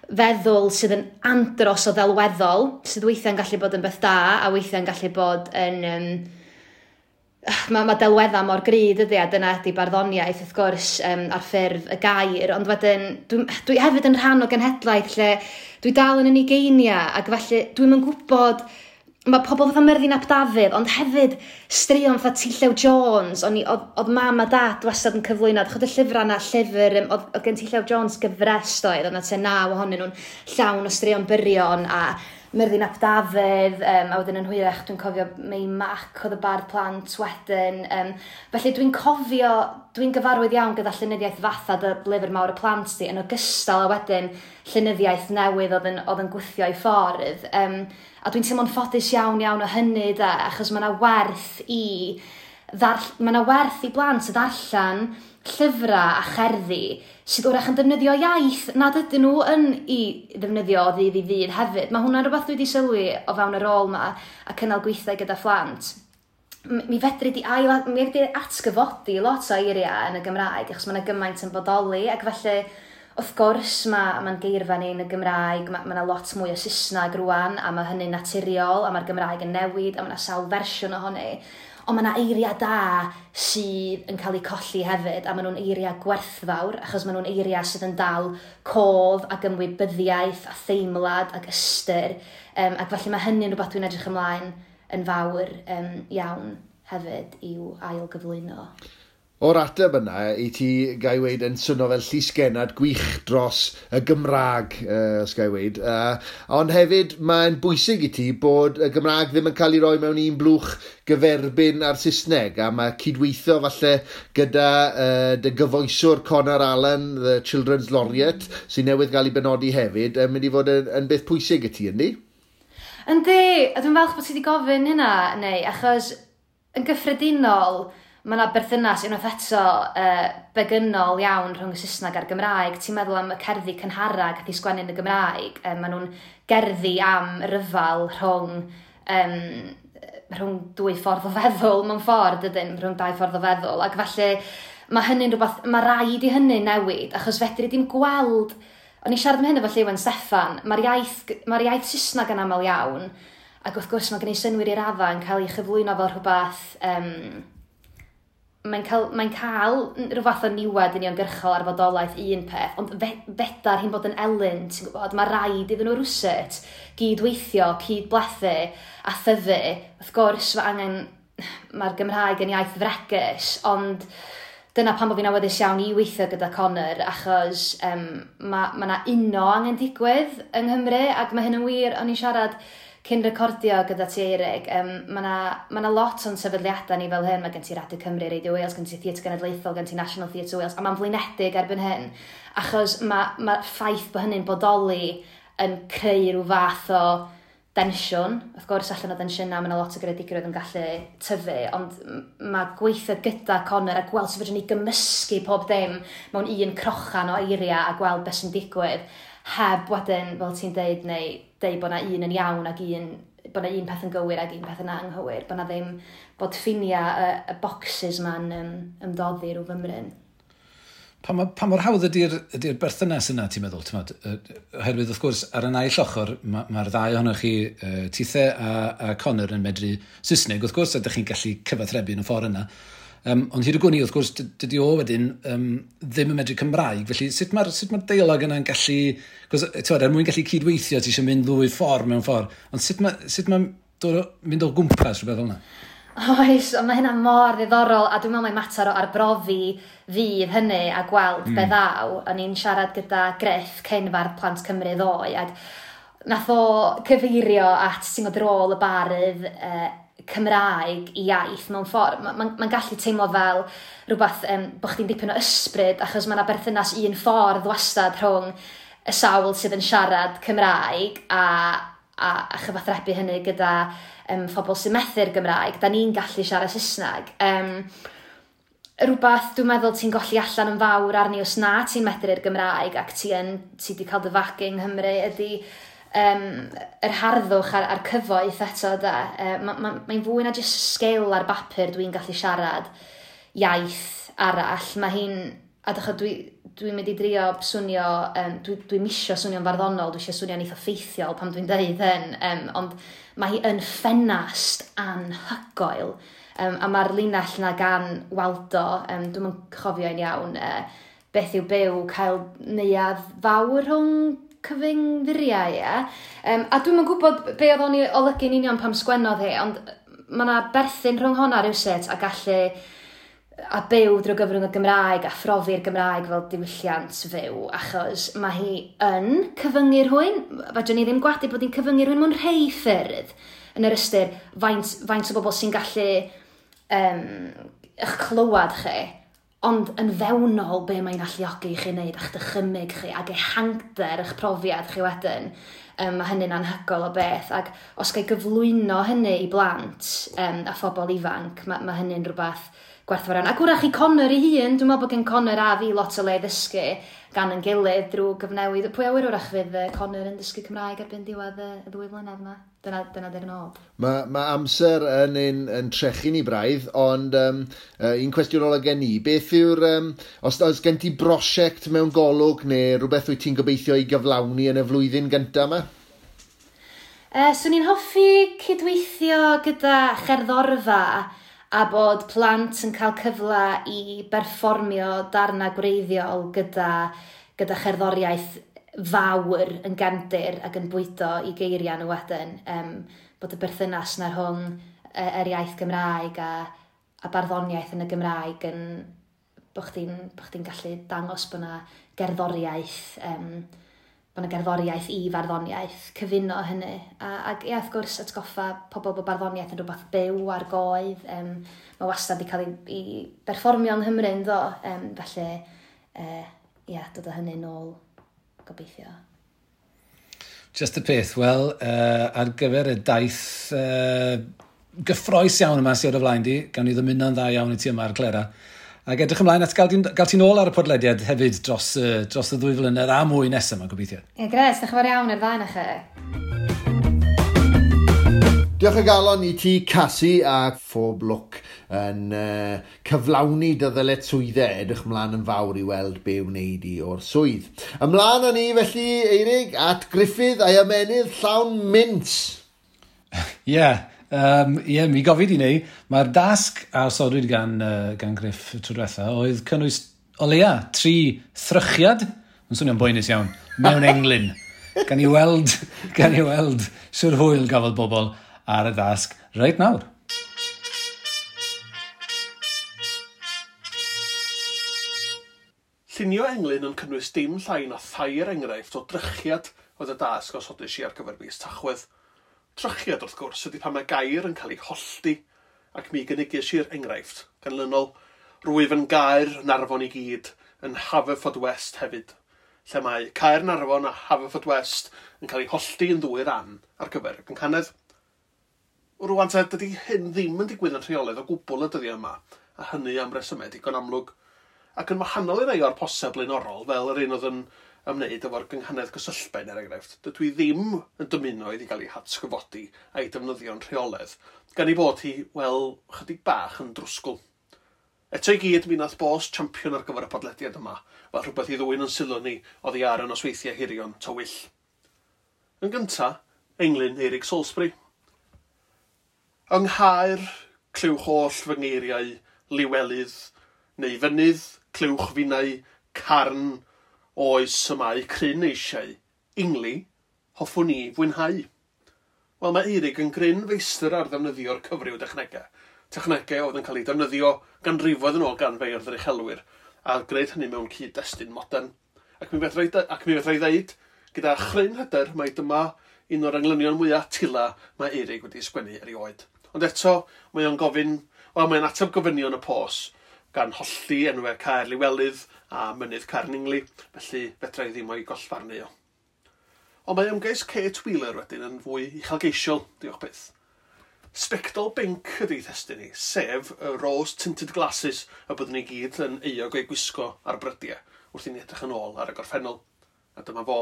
[SPEAKER 5] feddwl sydd yn andros o ddelweddol, sydd weithiau'n gallu bod yn beth da, a weithiau'n gallu bod yn... Mae delweddau mor gry, dydy, a dyna ydy barddoniaeth, wrth gwrs, ar ffurf y gair, ond wedyn, dwi hefyd yn rhan o genhedlaeth lle dwi dal yn ugeiniau, ac felly dwi'm yn gwybod... Mae pobl fatha Myrddin ap Dafydd, ond hefyd straeon fatha T. Llew Jones, oedd mam a dad wastad yn cyflwyno, chod y llyfrau yna, llyfr, oedd gen T. Llew Jones gyfres doedd, oedd yna tua 9 ohonyn nhw'n llawn o straeon byrion, a Myrddin ap Dafydd, a wedyn yn hwyrach dwi'n cofio Mei Mac oedd y bardd plant wedyn. Felly dwi'n cofio, dwi'n gyfarwydd iawn gyda llenyddiaeth fatha dy lyfr mawr y plant di, yn ogystal a wedyn llenyddiaeth newydd oedd yn gwthio i ffordd. A dwi'n teimlo'n ffodus iawn iawn o hynny da, achos mae yna werth i blant ddarllen llyfrau a cherddi sydd wrach yn defnyddio iaith nad ydyn nhw yn i ddefnyddio o ddydd i ddydd hefyd. Mae hwnna'n rhywbeth dwi wedi sylwi o fewn y rôl yma a cynnal gweithiau gyda phlant. Mi fedri di atgyfodi lot o eiriau yn y Gymraeg achos mae yna gymaint yn bodoli, ac felly wrth gwrs mae'n geirfa ni yn y Gymraeg, mae yna lot mwy o Saesneg rwan a mae hynny'n naturiol a mae'r Gymraeg yn newid a mae yna sawl fersiwn ohoni. Ond mae yna eiriau da sydd yn cael eu colli hefyd, a maen nhw'n eiriau gwerthfawr, achos maen nhw'n eiriau sydd yn dal cof ac ymwybyddiaeth a theimlad ac ystyr. Ac felly mae hynny'n rhywbeth dwi'n edrych ymlaen yn fawr iawn hefyd i'w ail gyflwyno.
[SPEAKER 2] O'r ateb yna, i ti, gai weid, yn swnio fel llysgennad gwych dros y Gymraeg, os gai weid. Ond hefyd, mae'n bwysig i ti bod y Gymraeg ddim yn cael ei roi mewn un blwch gyferbyn a'r Saesneg, a mae cydweithio falle gyda dy gyfoeswr Conor Allen, the Children's Laureate, sy'n newydd gael ei benodi hefyd, yn mynd i fod yn beth pwysig i ti, yndi?
[SPEAKER 5] Yndi, a dwi'n falch bod ti wedi gofyn hynna, neu, achos yn gyffredinol, Mae yna berthynas unwaith eto begynnol iawn rhwng y Saesneg a'r Gymraeg. Ti'n meddwl am y cerddi cynhara gath i sgwennu yn y Gymraeg. Maen nhw'n gerddi am ryfal rhwng dwy ffordd o feddwl mewn ffordd, ydyn, rhwng dau ffordd o feddwl. Ac felly mae hynny'n rhywbeth, mae rhaid i hynny newid, achos fedri dim gweld. O'n i'n siarad am hyn efo Lleuwen Steffan, mae'r iaith Saesneg yn aml iawn, ac wrth gwrs mae'n gwneud synnwyr i raddau yn cael ei chyflwyno fel rhywbeth, mae'n cael rhyw fath o niwed uniongyrchol ar fodolaeth un peth, ond fedar hi'n bod yn elyn, ti'n gwybod, mae rhaid iddyn nhw rwsut gydweithio, cydblethu a thyfu. Wrth gwrs, mae angen, mae'r Gymraeg yn iaith fregus, ond dyna pam bod fi'n awyddus iawn i weithio gyda Connor, achos mae 'na uno angen digwydd yng Nghymru, ac mae hyn yn wir. O'n i'n siarad cyn recordio gyda ti, Eirig, mae 'na lot o'n sefydliadau ni fel hyn. Mae gen ti Radio Cymru, Radio Wales, gen ti Theatr Genedlaethol, gen ti National Theatre Wales, a mae'n flinedig erbyn hyn, achos mae ffaith bod hynny'n bodoli yn creu rhyw fath o densiwn. Wrth gwrs, allan o densiynau, mae yna lot o greadigrwydd yn gallu tyfu, ond mae gweithio gyda Connor a gweld sut fedrwn ni gymysgu pob dim mewn un crochan o eiriau a gweld beth sy'n digwydd, heb wedyn, fel ti'n deud, neu deud bod na un yn iawn ac un, bod na un peth yn gywir ac un peth yn anghywir, bod na ddim, bod ffiniau y boxes ma'n ymdoddi rhyw fymryn.
[SPEAKER 1] Pa mor hawdd ydy'r berthynas yna, ti'n meddwl? Ti'n meddwl? Oherwydd, wrth gwrs, ar y naill ochr, mae'r ddau ohonoch chi, Tithe a Connor, yn medru Saesneg, wrth gwrs, a ydych chi'n gallu cyfathrebu yn y ffordd yna. Ond hyd y gwn i, wrth gwrs, dydy o wedyn ddim yn medru Cymraeg, felly sut mae'r deialog yna'n gallu? Cos, ti'n, er mwyn gallu cydweithio, ti eisiau mynd ddwy ffordd mewn ffordd. Ond sut mae mynd o gwmpas rhywbeth fel yna?
[SPEAKER 5] Oes, ond mae hynna mor ddiddorol, a dwi'n meddwl mai mater o arbrofi fydd hynny a gweld be ddaw. O'n i'n siarad gyda Griff, cyn fardd Plant Cymru, ddoe, ac nath o cyfeirio at, ti'n gwybod, rôl y bardd Cymraeg i iaith mewn ffordd. Mae'n ma gallu teimlo fel rhywbeth bod chdi'n dipyn o ysbryd, achos mae yna berthynas un ffordd wastad rhwng y sawl sydd yn siarad Cymraeg a chyfathrebu hynny gyda phobl sy'n methu'r Gymraeg. Da ni'n gallu siarad Saesneg. Rhywbeth dwi'n meddwl ti'n golli allan yn fawr arni os na ti'n medru'r Gymraeg ac ti wedi cael dy fagu yng Nghymru ydy yr harddwch a'r cyfoeth eto da. Mae'n fwy na jyst sgil ar bapur dwi'n gallu siarad iaith arall. Mae hi'n, a dych dwi'n mynd i drio swnio, dwi misio swnio'n farddonol, dwi eisiau swnio'n eitha ffeithiol pan dwi'n deud hyn, ond mae hi yn ffenast anhygoel. A mae'r linell na gan Waldo, dwi'n yn cofio yn iawn, beth yw byw cael neuadd fawr rhwng cyfyng furiau, ie. A dwi'm yn gwybod be oedd o'n ei olygu'n union pam sgwennodd hi, ond mae yna berthyn rhwng honna rhywsut a gallu a byw drwy gyfrwng y Gymraeg a phrofi'r Gymraeg fel diwylliant fyw, achos mae hi yn cyfyngu rhywun. Fedrwn ni ddim gwadu bod hi'n cyfyngu rhywun mewn rhai ffyrdd, yn yr ystyr faint o bobl sy'n gallu eich clywed chi, ond yn fewnol be mae'n alluogi i chi wneud a'ch dychymyg chi ac ehangder eich profiad chi wedyn. Mae hynny'n anhygoel o beth, ac os ga i gyflwyno hynny i blant a phobl ifanc, mae hynny'n rhywbeth gwerthfawr iawn. Ac wrach i Connor ei hun, dwi'n meddwl bod gen Connor a fi lot o le i ddysgu gan yn gilydd drwy gyfnewid. Pwy a wyr, wrach fydd Connor yn dysgu Cymraeg erbyn diwedd y 2 flynedd yma. Dyna di'r nod.
[SPEAKER 2] Mae amser yn trechu ni braidd, ond un cwestiwn ola gen i, beth yw'r, os oes gen ti brosiect mewn golwg neu rhywbeth wyt ti'n gobeithio i gyflawni yn y flwyddyn gyntaf yma?
[SPEAKER 5] Swn i'n hoffi cydweithio gyda cherddorfa a bod plant yn cael cyfle i berfformio darna gwreiddiol gyda cherddoriaeth fawr yn gefndir ac yn bwydo i geiriau nhw wedyn. Bod y berthynas na rhwng yr iaith Gymraeg a barddoniaeth yn y Gymraeg yn bod chdi'n gallu dangos bod 'na gerddoriaeth i farddoniaeth, cyfuno hynny. Ac ie, wrth gwrs, atgoffa pobl bod barddoniaeth yn rhywbeth byw ar goedd. Mae wastad wedi cael ei berfformio yng Nghymru, yn do. Felly, ie, dod â hynny nôl, gobeithio.
[SPEAKER 1] Just y peth, wel, ar gyfer y daith gyffroes iawn yma sydd ar y flaen di, gawn ni ddymuno'n dda iawn i ti yma ar Clera. Ac edrych ymlaen at gael ti'n ôl ar y podlediad hefyd dros y 2 flynedd a mwy nesaf yma, gobeithio.
[SPEAKER 5] Ie, gres, diolch yn fawr iawn i'r ddau na chi.
[SPEAKER 2] Diolch o galon i ti, Casi, a phob lwc yn cyflawni dy ddyletswyddau. Edrych ymlaen yn fawr i weld be wneud i o'r swydd. Ymlaen â ni felly, Eirig, at Gruffydd a'i ymennydd llawn mints.
[SPEAKER 1] Ie. Ie, mi gofid i ni. Mae'r dasg a osodwyd gan Griff tro diwetha oedd cynnwys o leia 3 thrychiad, yn swnio'n boenus iawn, mewn englyn. Gan i weld siwr hwyl gafodd bobl ar y dasg reit nawr.
[SPEAKER 6] Llunio englyn yn cynnwys dim llai na 3 enghraifft o drychiad oedd y dasg osodais i ar gyfer mis Tachwedd. Trychiad, wrth gwrs, ydy pan mae gair yn cael ei hollti, ac mi gynigais i'r enghraifft ganlynol. Rwyf yn Gaernarfon i gyd, yn Haverfordwest hefyd, lle mae Caernarfon a Haverfordwest yn cael ei hollti yn 2 ran ar gyfer y gynghanedd. Rwan te, dydy hyn ddim yn digwydd yn rheolaidd o gwbl y dyddiau yma, a hynny am resymau digon amlwg. Ac yn wahanol i rai o'r posau blaenorol, fel yr un oedd yn ymwneud efo'r gynghanedd gysylltben, er enghraifft, dydw i ddim yn dymuno iddi gael ei hatgyfodi a'i defnyddio'n rheolaidd, gan ei bod hi, wel, chydig bach yn drwsgwl. Eto i gyd, mi nath bos champion ar gyfer y podlediad yma, fel rhywbeth i ddwyn yn sylw ni oddi ar y nosweithiau hirion tywyll. Yn gynta, englyn Eirig Salisbury. Yng Nghaer, clywch holl fy ngeiriau, liwelydd, neu fynydd, clywch finnau, carn, oes y mae cryn eisiau, ingli, hoffwn ni fwynhau. Wel, mae Eirig yn gryn feistr ar ddefnyddio'r cyfryw dechnegau. Technegau oedd yn cael eu defnyddio ganrifoedd yn ôl gan feirdd yr uchelwyr, a gwneud hynny mewn cyd-destun modern. Ac mi fedra i ddeud, gyda chryn hyder, mai dyma un o'r englynion mwyaf tila mae Eirig wedi sgwennu erioed. Ond eto, mae o'n gofyn, wel, mae'n ateb gofynion y pos, gan hollti enwau Caer Liwelydd a Mynydd Carningli, felly fedra i ddim o'i gollfarnu o. Ond mae ymgais Kate Wheeler wedyn yn fwy uchelgeisiol, diolch byth. Sbectol binc ydy thestun ni, sef y rose-tinted glasses y byddwn ni gyd yn euog o'i gwisgo ar brydiau wrth i ni edrych yn ôl ar y gorffennol. A dyma fo.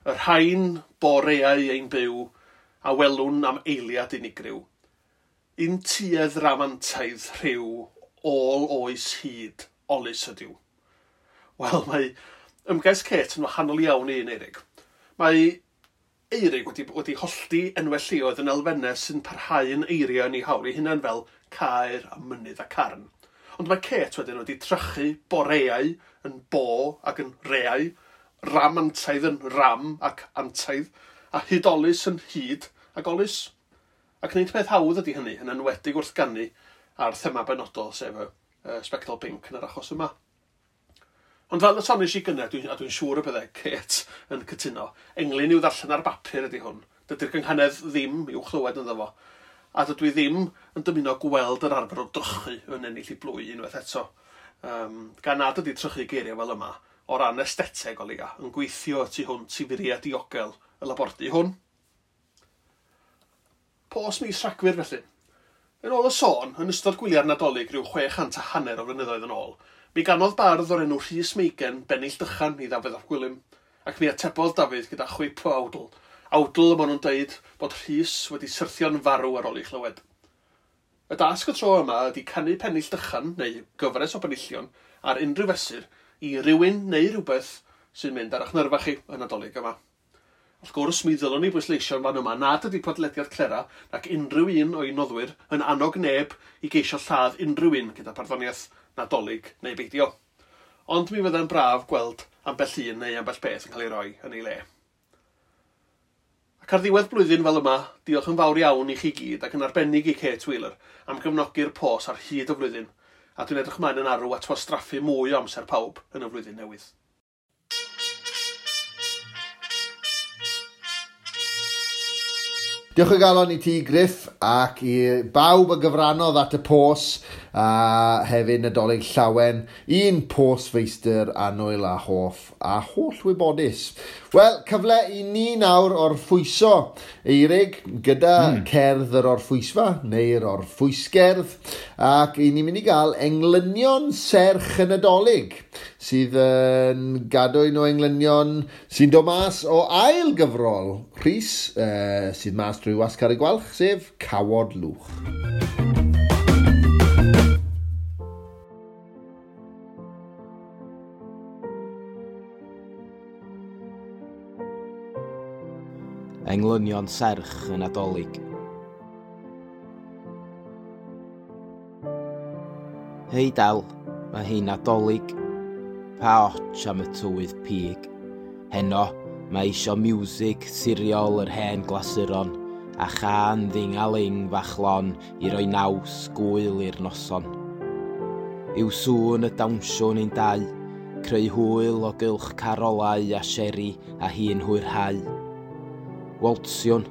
[SPEAKER 6] Y rhain boreau ein byw a welwn am eiliad unigryw. Un tuedd ramantaidd rhyw ôl oes hyd, olus ydyw. Wel, mae ymgais Kate yn wahanol iawn i un Eirig. Mae Eirig wedi hollti enwau lleoedd yn elfennau sy'n parhau yn eiriau yn ei hawl ei hunain fel caer a mynydd a carn. Ond mae Kate wedyn wedi trychu boreau yn bo ac yn reau, ramantaidd yn ram ac antaidd, a hudolus yn hyd ac olus. Ac nid peth hawdd ydy hynny, yn enwedig wrth ganu a'r thema benodol, sef y sbectol pinc yn yr achos yma. Ond fel y soniais i gynnar, a dwi'n siŵr y byddai Kate yn cytuno, englyn i'w ddarllen ar bapur ydy hwn. Dydy'r gynghanedd ddim i'w chlywed ynddo fo. A dydw i ddim yn dymuno gweld yr arfer o drychu yn ennill i blwy unwaith eto. Gan nad ydy trychu geiriau fel yma, o ran estheteg o leia, yn gweithio tu hwnt i furiau diogel y labordy hwn. Pos mis Rhagfyr felly. Yn ôl y sôn, yn ystod gwyliau'r Nadolig rhyw 650 o flynyddoedd yn ôl, mi ganodd bardd o'r enw Rhys Meigen bennill dychan i Ddafydd ap Gwilym, ac mi atebodd Dafydd gyda chwip o awdl. Awdl y maen nhw'n deud bod Rhys wedi syrthio'n farw ar ôl ei chlywed. Y dasg y tro yma ydy canu pennill dychan, neu gyfres o benillion, ar unrhyw fesur i rywun neu rhywbeth sy'n mynd ar eich nyrfa chi y Nadolig yma. Wrth gwrs, mi ddylwn ni bwysleisio'n fan yma nad ydy podlediad Clera nac unrhyw un o'i noddwyr yn annog neb i geisio lladd unrhyw un gyda barddoniaeth Nadolig neu beidio. Ond mi fyddai'n braf gweld ambell un neu ambell beth yn cael ei roi yn ei le. Ac ar ddiwedd blwyddyn fel yma, diolch yn fawr iawn i chi gyd ac yn arbennig i Kate Wheeler am gefnogi'r pos ar hyd y flwyddyn, a dwi'n edrych ymlaen yn arw at wastraffu mwy o amser pawb yn y flwyddyn newydd.
[SPEAKER 2] Diolch o galon i ti, Griff, ac i bawb a gyfrannodd at y pos, a hefyd Nadolig Llawen, un pos feistr annwyl a hoff a holl wybodus. Wel, cyfle i ni nawr orffwyso, Eirig, gyda cerdd yr orffwysfa, neu'r orffwysgerdd, ac i ni'n mynd i gael englynion serch y Nadolig, sydd yn gadwyn o englynion sy'n dod mas o ail gyfrol Rhys, sydd mas drwy Wasg Carreg Gwalch, sef Cawod Lwch.
[SPEAKER 7] Englynion serch y Nadolig. Hei Del, mae hi'n Nadolig. Pa otsh am y tywydd pig. Heno, mae isio miwsig siriol yr hen glasuron a chan dding-a-ling fach lon i roi naws gwyl i'r noson. Yw sŵn y dawnsiwn ein dau, creu hwyl o gylch carolau a seri a hi'n hwyrhau. Waltsiwn,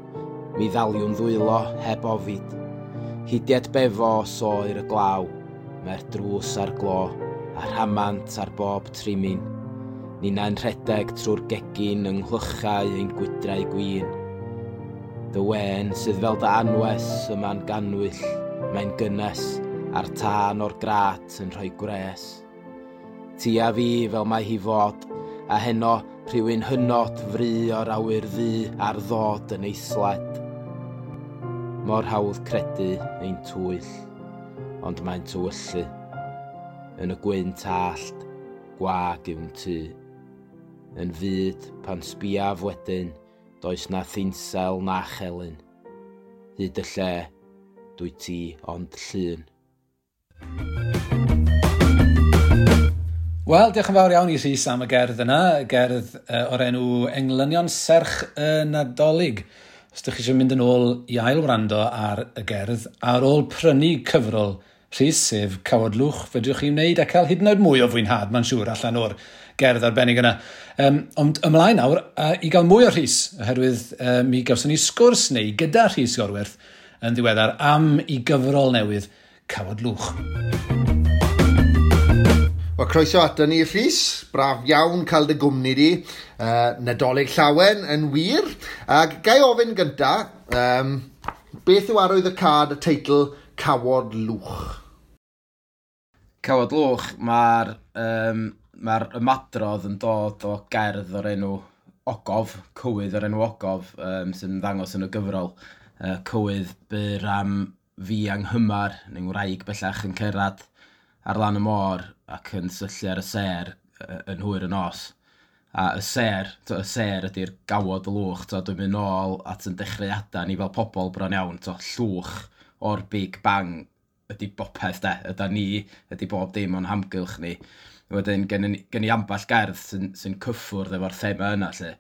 [SPEAKER 7] mi ddaliwn ddwylo heb ofid. Hidiad befo os oer y glaw, mae'r drws ar glo a rhamant ar bob trimin. Ninna'n rhedeg trwy'r gegin yng nghlychau ein gwydrau gwin. Dy wên sydd fel dy anwes yma'n ganwyll, mae'n gynnes, a'r tân o'r grat yn rhoi gwres. Ti a fi fel mae hi fod, a heno rhywun hynod fry o'r awyr ddu ar ddod yn ei sled. Mor hawdd credu ein twyll, ond mae'n tywyllu. Yn y gwynt allt, gwag yw'n tŷ. Yn fyd, pan sbiaf wedyn, does na thinsel na chelyn. Hyd y lle, dwi ti ond llun.
[SPEAKER 1] Wel, diolch yn fawr iawn i Rhys am y gerdd yna, gerdd o'r enw Englynion Serch y Nadolig. Os ydych chi eisiau mynd yn ôl i ail wrando ar y gerdd, ar ôl prynu cyfrol Rhys, sef Cawod Lwch, fedrwch chi wneud a cael hyd yn oed mwy o fwynhad, mae'n siŵr, allan o'r gerdd arbennig yna. Ond ymlaen nawr, i gael mwy o Rhys, oherwydd mi gawson ni sgwrs neu gyda Rhys Iorwerth yn ddiweddar am i gyfrol newydd Cawod Lwch.
[SPEAKER 2] Wel, croeso ato ni, Rhys. Braf iawn cael dy gwmni di. Nadolig Llawen yn wir. Ac ga i ofyn gynta, beth yw arwydd y cad y teitl Cawod Lwch?
[SPEAKER 7] Cawod Lwch, mae'r ymadrodd yn dod o gerdd o'r enw Ogof, cywydd o'r enw Ogof, sy'n ymddangos yn y gyfrol. Cywydd byr am fi anghymar, neu'n wraig bellach yn cyrraedd ar lan y môr ac yn syllu ar y sêr yn hwyr y nos. A y sêr, y sêr ydy'r gawod y lwch, dwi'n mynd nôl at yn dechreuadau ni fel pobl bron iawn, llwch o'r Big Bang ydy bopeth de, yda ni, ydy bob dim o'n hamgylch ni. Wedyn gen i ambell gerdd sy'n cyffwrdd efo'r thema yna lle.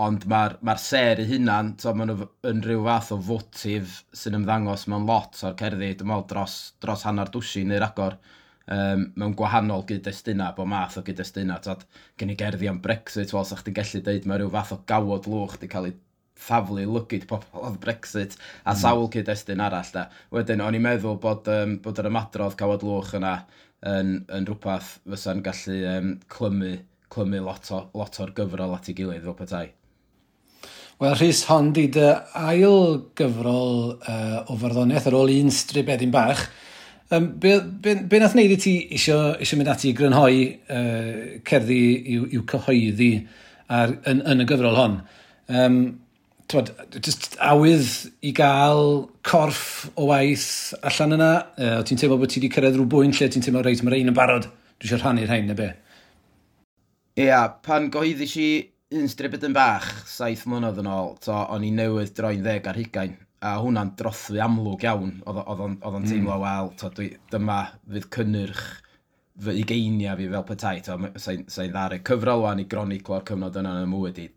[SPEAKER 7] Ond mae'r sêr eu hunan, maen nhw yn rhyw fath o fotif sy'n ymddangos mewn lot o'r cerddi, dwi'n meddwl dros hanner dwsin neu ragor, mewn gwahanol gyd-destunau, bob math o gyd-destunau. Gen i gerddi am Brexit, wel, sa chdi'n gallu deud mae rhyw fath o gawod lwch di cael ei thaflu lygid pobl oedd Brexit a sawl cyd-destun arall. Da. Wedyn, o'n i'n meddwl bod yr ymadrodd cawod lwch yna yn rhywbeth fysa'n gallu clymu lot o'r gyfrol at ei gilydd fel petai.
[SPEAKER 1] Wel, Rhys, hon di dy ail gyfrol o farddoniaeth ar ôl un stribedyn bach. Be nath wneud i ti isio mynd ati i grynhoi cerddi i'w cyhoeddi yn y gyfrol hon? Just awydd i gael corff o waith allan yna? O ti'n teimlo bod ti wedi cyrraedd rhyw bwynt lle ti'n teimlo, reit, mae'r ein yn barod, dwi eisiau rhannu'r rhain neu be?
[SPEAKER 7] Ia, pan gyhoeddis i un stribedyn bach 7 mlynedd yn ôl, o'n i newydd droi'n 10 ar 20, a hwnna'n drothwy amlwg iawn. Oedd o'n teimlo, wel, dyma fydd cynnyrch fy ugeiniau fi fel petai, sa'n ddaru cyfrol wan i groniclo'r cyfnod yna yn y mywyd i,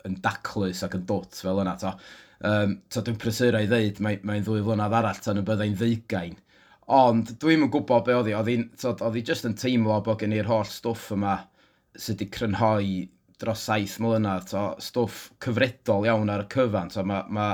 [SPEAKER 7] yn daclus ac yn dwt fel yna. Dwi'n prysuro i ddeud, mae'n 2 flynedd arall tan y byddai'n 20. Ond dwi'm yn gwybod be oedd hi, oedd hi just yn teimlo bod gen i'r holl stwff yma sydd wedi crynhoi dros 7 mlynedd, to, stwff cyfredol iawn ar y cyfan, to, ma, ma,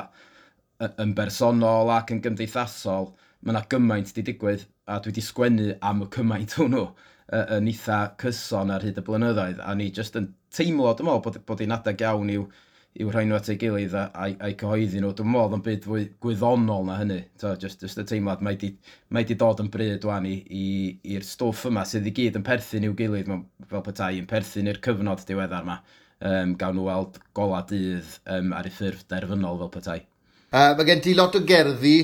[SPEAKER 7] yn bersonol ac yn gymdeithasol, mae yna gymaint di digwydd, a dwi wedi sgwennu am y cymaint hwnnw yn eitha cyson ar hyd y blynyddoedd, a ni jyst yn teimlo, dwi'n meddwl, bod hi'n adeg iawn i'w rhoi nhw at ei gilydd a'i cyhoeddi nhw. Dwi'n meddwl yn byd fwy gwyddonol na hynny. So, just y teimlad, mae di dod yn bryd wan i'r stwff yma sydd i gyd yn perthyn i'w gilydd, fel petai, yn perthyn i'r cyfnod diweddar yma. Gawn nhw weld gola dydd ar ei ffurf derfynol fel petai.
[SPEAKER 2] Mae gen ti lot o gerddi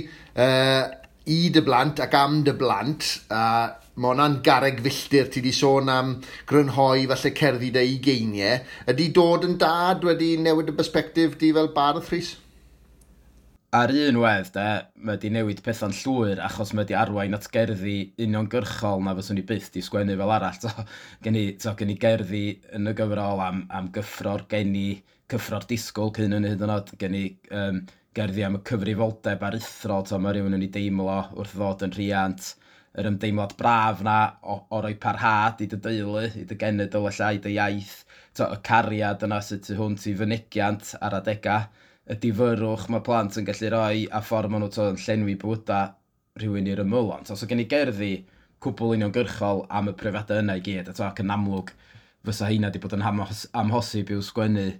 [SPEAKER 2] i dy blant ac am dy blant, a mae hwnna'n garreg filltir. Ti di sôn am grynhoi falle cerddi dy ugeiniau. Ydy dod yn dad wedi newid y perspectif di fel bardd, Rhys?
[SPEAKER 7] Ar un wedd, de, mae di newid pethau'n llwyr achos mae di arwain at gerddi uniongyrchol na fyswn i byth di sgwennu fel arall. To, gen i gerddi yn y gyfrol am gyffro'r geni, cyffro'r disgwyl cyn yn hyd yn oed, gen i gerddi am y cyfrifoldeb aruthrol, to, mae rhywun yn ei deimlo wrth ddod yn rhiant, yr ymdeimlad braf na o roi parhad i dy deulu, i dy genedl ella, i dy iaith, to, y cariad yna sydd tu hwnt i fynegiant ar adegau, y difyrrwch mae plant yn gallu rhoi a ffordd maen nhw to, yn llenwi bywydau rhywun i'r ymylon. So gen i gerddi cwbl uniongyrchol am y profiadau yna i gyd, a to, ac yn amlwg fysa heina wedi bod yn amhosib i'w sgwennu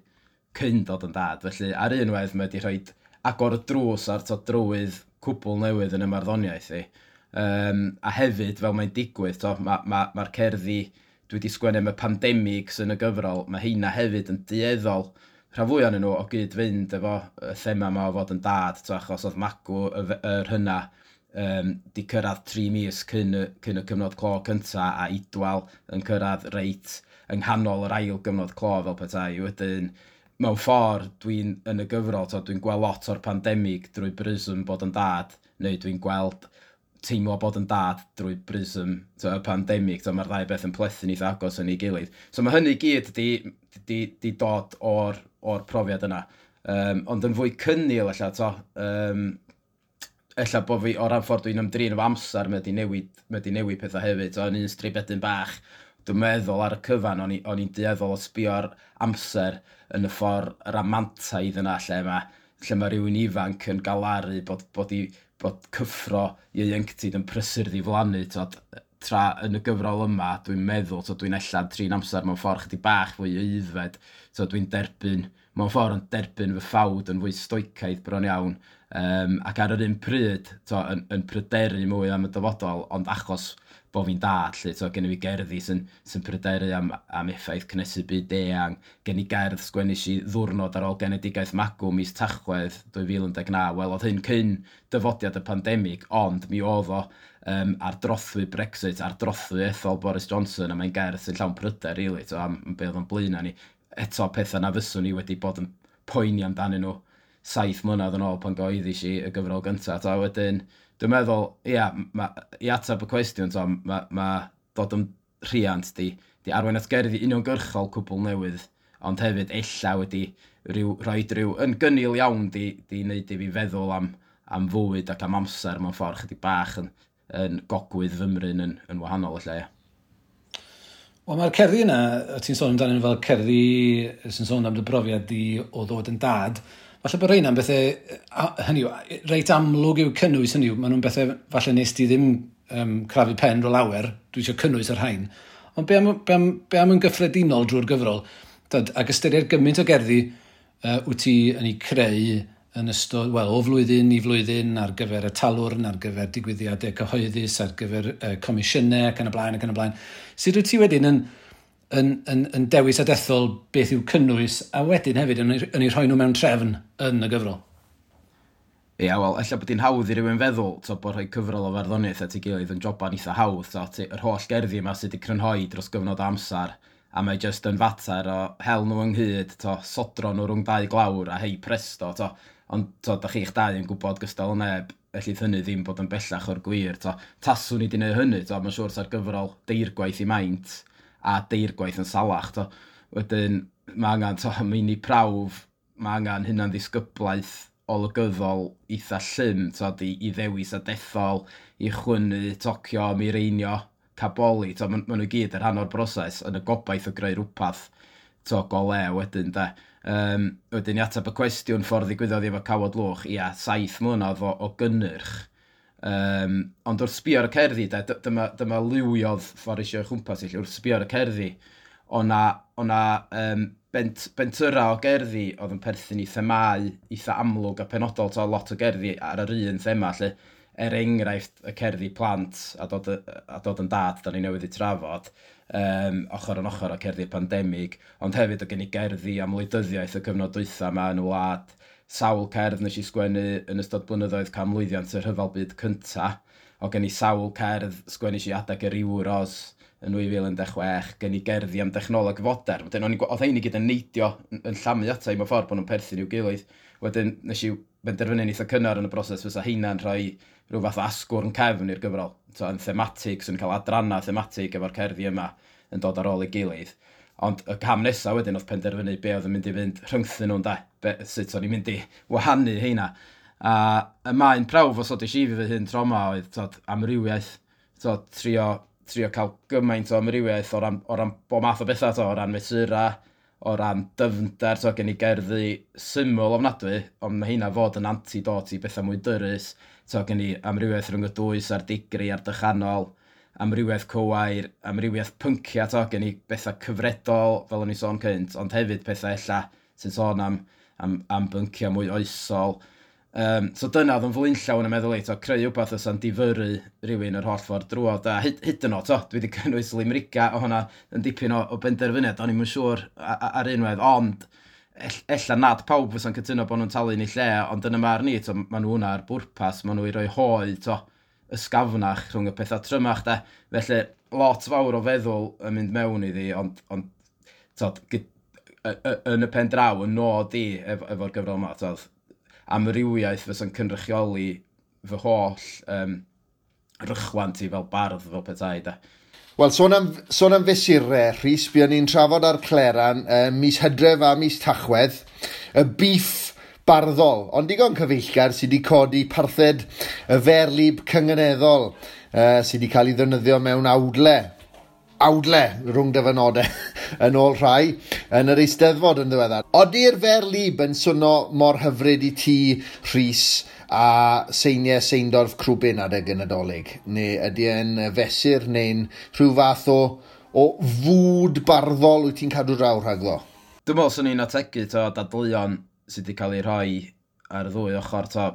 [SPEAKER 7] cyn dod yn dad. Felly ar un wedd mae wedi rhoi agor y drws ar to, drywydd cwbl newydd yn y marddoniaeth i. A hefyd, fel mae'n digwydd, to, mae'r cerddi dwi wedi sgwennu am y pandemig sy'n y gyfrol, mae heina hefyd yn dueddol rhan fwy ohonyn nhw o gyd fynd efo y thema yma o fod yn dad, to, achos oedd magw yr hynna di cyrraedd 3 mis cyn y cyfnod clo cynta, a Idwal yn cyrraedd reit yng nghanol yr ail gyfnod clo fel petai. Wedyn, mewn ffordd, dwi'n yn y gyfrol, to, dwi'n gweld lot o'r pandemig drwy brism bod yn dad, neu dwi'n gweld teimlo bod yn dad drwy brism to, y pandemig, to, mae'r ddau beth yn plethu'n eitha agos yn ei gilydd. So mae hynny gyd di dod o'r profiad yna. Ond yn fwy cynnil ella, to, ella bod fi o ran ffordd dwi'n ymdrin efo amser, mae di newid pethau hefyd. To, yn un stribedyn bach, dwi'n meddwl ar y cyfan, o'n i'n dueddol o sbio ar amser yn y ffordd ramantaidd yna, lle mae rhywun ifanc yn galaru bod cyffro ieuenctid yn prysur ddiflannu, tra yn y gyfrol yma, dwi'n meddwl, dwi'n ella trin amser mewn ffordd chydig bach fwy aeddfed, dwi'n derbyn, mewn ffordd yn derbyn fy ffawd yn fwy stoicaidd bron iawn, ac ar yr un pryd, yn pryderu mwy am y dyfodol, ond achos bod fi'n dad, lle, gen i fi gerddi sy'n pryderu am effaith cynhesu byd eang, gen i gerdd sgwennu i ddwrnod ar ôl genedigaeth magw mis Tachwedd 2019, wel oedd hyn cyn dyfodiad y pandemig, ond mi oedd o ar drothwy Brexit, ar drothwy ethol Boris Johnson, a mae'n gerdd sy'n llawn pryder, really, to, am be oedd o'n blaen ni. Eto pethau na fyswn ni wedi bod yn poeni amdanyn nhw 7 mlynedd yn ôl pan gyhoeddis i y gyfrol gyntaf. To, wedyn, dwi'n meddwl, ia, i ateb y cwestiwn, to, ma dod yn rhiant di arwain at gerddi uniongyrchol cwbl newydd, ond hefyd ella wedi rhoi rhyw yn gynnil iawn di wneud i fi feddwl am fywyd ac am amser mewn ffordd chydig bach yn gogwydd fymryn yn wahanol ella, ia.
[SPEAKER 1] Wel, mae'r cerddi yna, ti'n sôn amdanyn nhw fel cerddi sy'n sôn am dy brofiad di o ddod yn dad, falle bod rheina'n bethau, hynny yw, reit amlwg yw cynnwys, hynny yw, maen nhw'n bethau falle nes di ddim crafu pen ro lawer, dwi eisiau cynnwys yr rhain. Ond be am yn gyffredinol drwy'r gyfrol, ac ystyried gymaint o gerddi wyt ti yn ei creu yn ystod, wel, o flwyddyn i flwyddyn ar gyfer y talwrn, ar gyfer digwyddiadau cyhoeddus, ar gyfer comisiynau ac yn y blaen ac yn y blaen. Sut wyt ti wedyn yn dewis a dethol beth yw cynnwys, a wedyn hefyd yn ei rhoi nhw mewn trefn yn y gyfrol?
[SPEAKER 7] Ia, wel, ella bod hi'n hawdd i rywun feddwl to, bod rhoi cyfrol o farddoniaeth at ei gilydd yn joban eitha hawdd. To, yr holl gerddi yma sydd wedi crynhoi dros gyfnod amser, a mae jyst yn fater o hel nhw ynghyd, to, sodro nhw rhwng dau glawr a hei presto. To. Ond to, da chi'ch dau yn gwybod gystal o neb, ellith hynny ddim bod yn bellach o'r gwir. To. Taswn i wedi gwneud hynny, to, mae'n siŵr sa'r gyfrol deirgwaith i maint a deirgwaith yn salach. To. Wedyn, mae angen to, meini prawf, mae angen hynna'n ddisgyblaeth olygyddol eitha llym, to, i ddewis a dethol, i chwynnu, tocio, mireinio, caboli. To, ma nhw gyd yn rhan o'r broses yn y gobaith o greu rhywbeth to, go le wedyn, de. Wedyn i ateb y cwestiwn ffordd ddigwyddodd efo Cawod Lwch, ia, 7 mlynedd o gynnyrch. Ond wrth sbio ar y cerddi, de, dyma liwiodd ffordd eisiau chwmpas i, wrth sbio ar y cerddi, o'na bentyra o gerddi oedd yn perthyn i themâu eitha amlwg a penodol, to, lot o gerddi ar yr un thema, lle, er enghraifft y cerddi plant a dod yn dad, da ni newydd i trafod, ochr yn ochr o cerddi'r pandemig, ond hefyd o gen i gerddi am wleidyddiaeth y cyfnod dwytha yma yn y wlad, sawl cerdd nes i sgwennu yn ystod blynyddoedd canmlwyddiant y Rhyfel Byd Cynta, o gen i sawl cerdd sgwennu si adeg yr Euros yn 2016, gen i gerddi am dechnoleg fodern. Wedyn, oedd hein i gyd yn neidio yn llamu ata i mewn ffordd bod nhw'n perthyn i'w gilydd. Wedyn nes i benderfynu'n eitha cynnar yn y broses fysa heina'n rhoi rhyw fath o asgwrn cefn i'r gyfrol. So, yn thematig, so yn cael adrannau thematig efo'r cerddi yma yn dod ar ôl ei gilydd. Ond y cam nesaf wedyn oedd penderfynu be oedd yn mynd i fynd rhyngthyn nhw'n de, sut o'n i'n mynd i wahanu heina. A y maen prawf os oedd i fi fy hun tro yma oedd tod, amrywiaeth, tod, trio cael gymaint o amrywiaeth o ran bob math o bethau, to, o ran mesurau, o ran dyfnder, to, gen i gerddi syml ofnadwy, ond mae heina fod yn antidot i bethau mwy dyrys, to, gen i amrywiaeth rhwng y dwys a'r digri a'r dychanol, amrywiaeth cywair, amrywiaeth pynciau, to, gen i bethau cyfredol, fel o'n i sôn cynt, ond hefyd pethau ella sy'n sôn am bynciau mwy oesol. So dyna oedd yn flaenllaw yn y meddwl i, to, creu wbath fysa'n difyrru rhywun yr holl ffordd drwodd. A hyd yn oed, to, dwi wedi cynnwys limerica o hwnna yn dipyn o benderfyniad, o'n i'm yn siŵr ar unwaith, ond ella nad pawb fysa'n cytuno bod nhw'n talu yn ei lle, ond yn y marn i, to, maen nhw hwnna ar bwrpas, maen nhw i roi hoe, to, ysgafnach rhwng y pethau trymach, de. Felly, lot fawr o feddwl yn mynd mewn iddi, ond to, yn y pen draw, yn nod i efo'r gyfrol yma, to, amrywiaeth fysa'n cynrychioli fy holl rychwant i fel bardd, fel petai, de.
[SPEAKER 2] Wel, sôn am fesurau, Rhys, buon ni'n trafod ar Cleran mis Hydref a mis Tachwedd, y beef barddol, ond digon cyfeillgar sydd wedi codi parthed y ferlib cynganeddol sydd wedi cael ei ddefnyddio mewn awdle rhwng dyfynodau yn ôl rhai yn yr Eisteddfod yn ddiweddar. Odi'r ferlib yn swnio mor hyfryd i ti, Rhys, a seiniau Seindorf Crwbin adeg y Nadolig? Neu ydy e'n fesur neu'n rhyw fath o fwd barddol wyt ti'n cadw draw rhagddo?
[SPEAKER 7] Dwi'n meddwl swn i'n ategu to, dadleuon sydd wedi cael ei rhoi ar y ddwy ochr. To,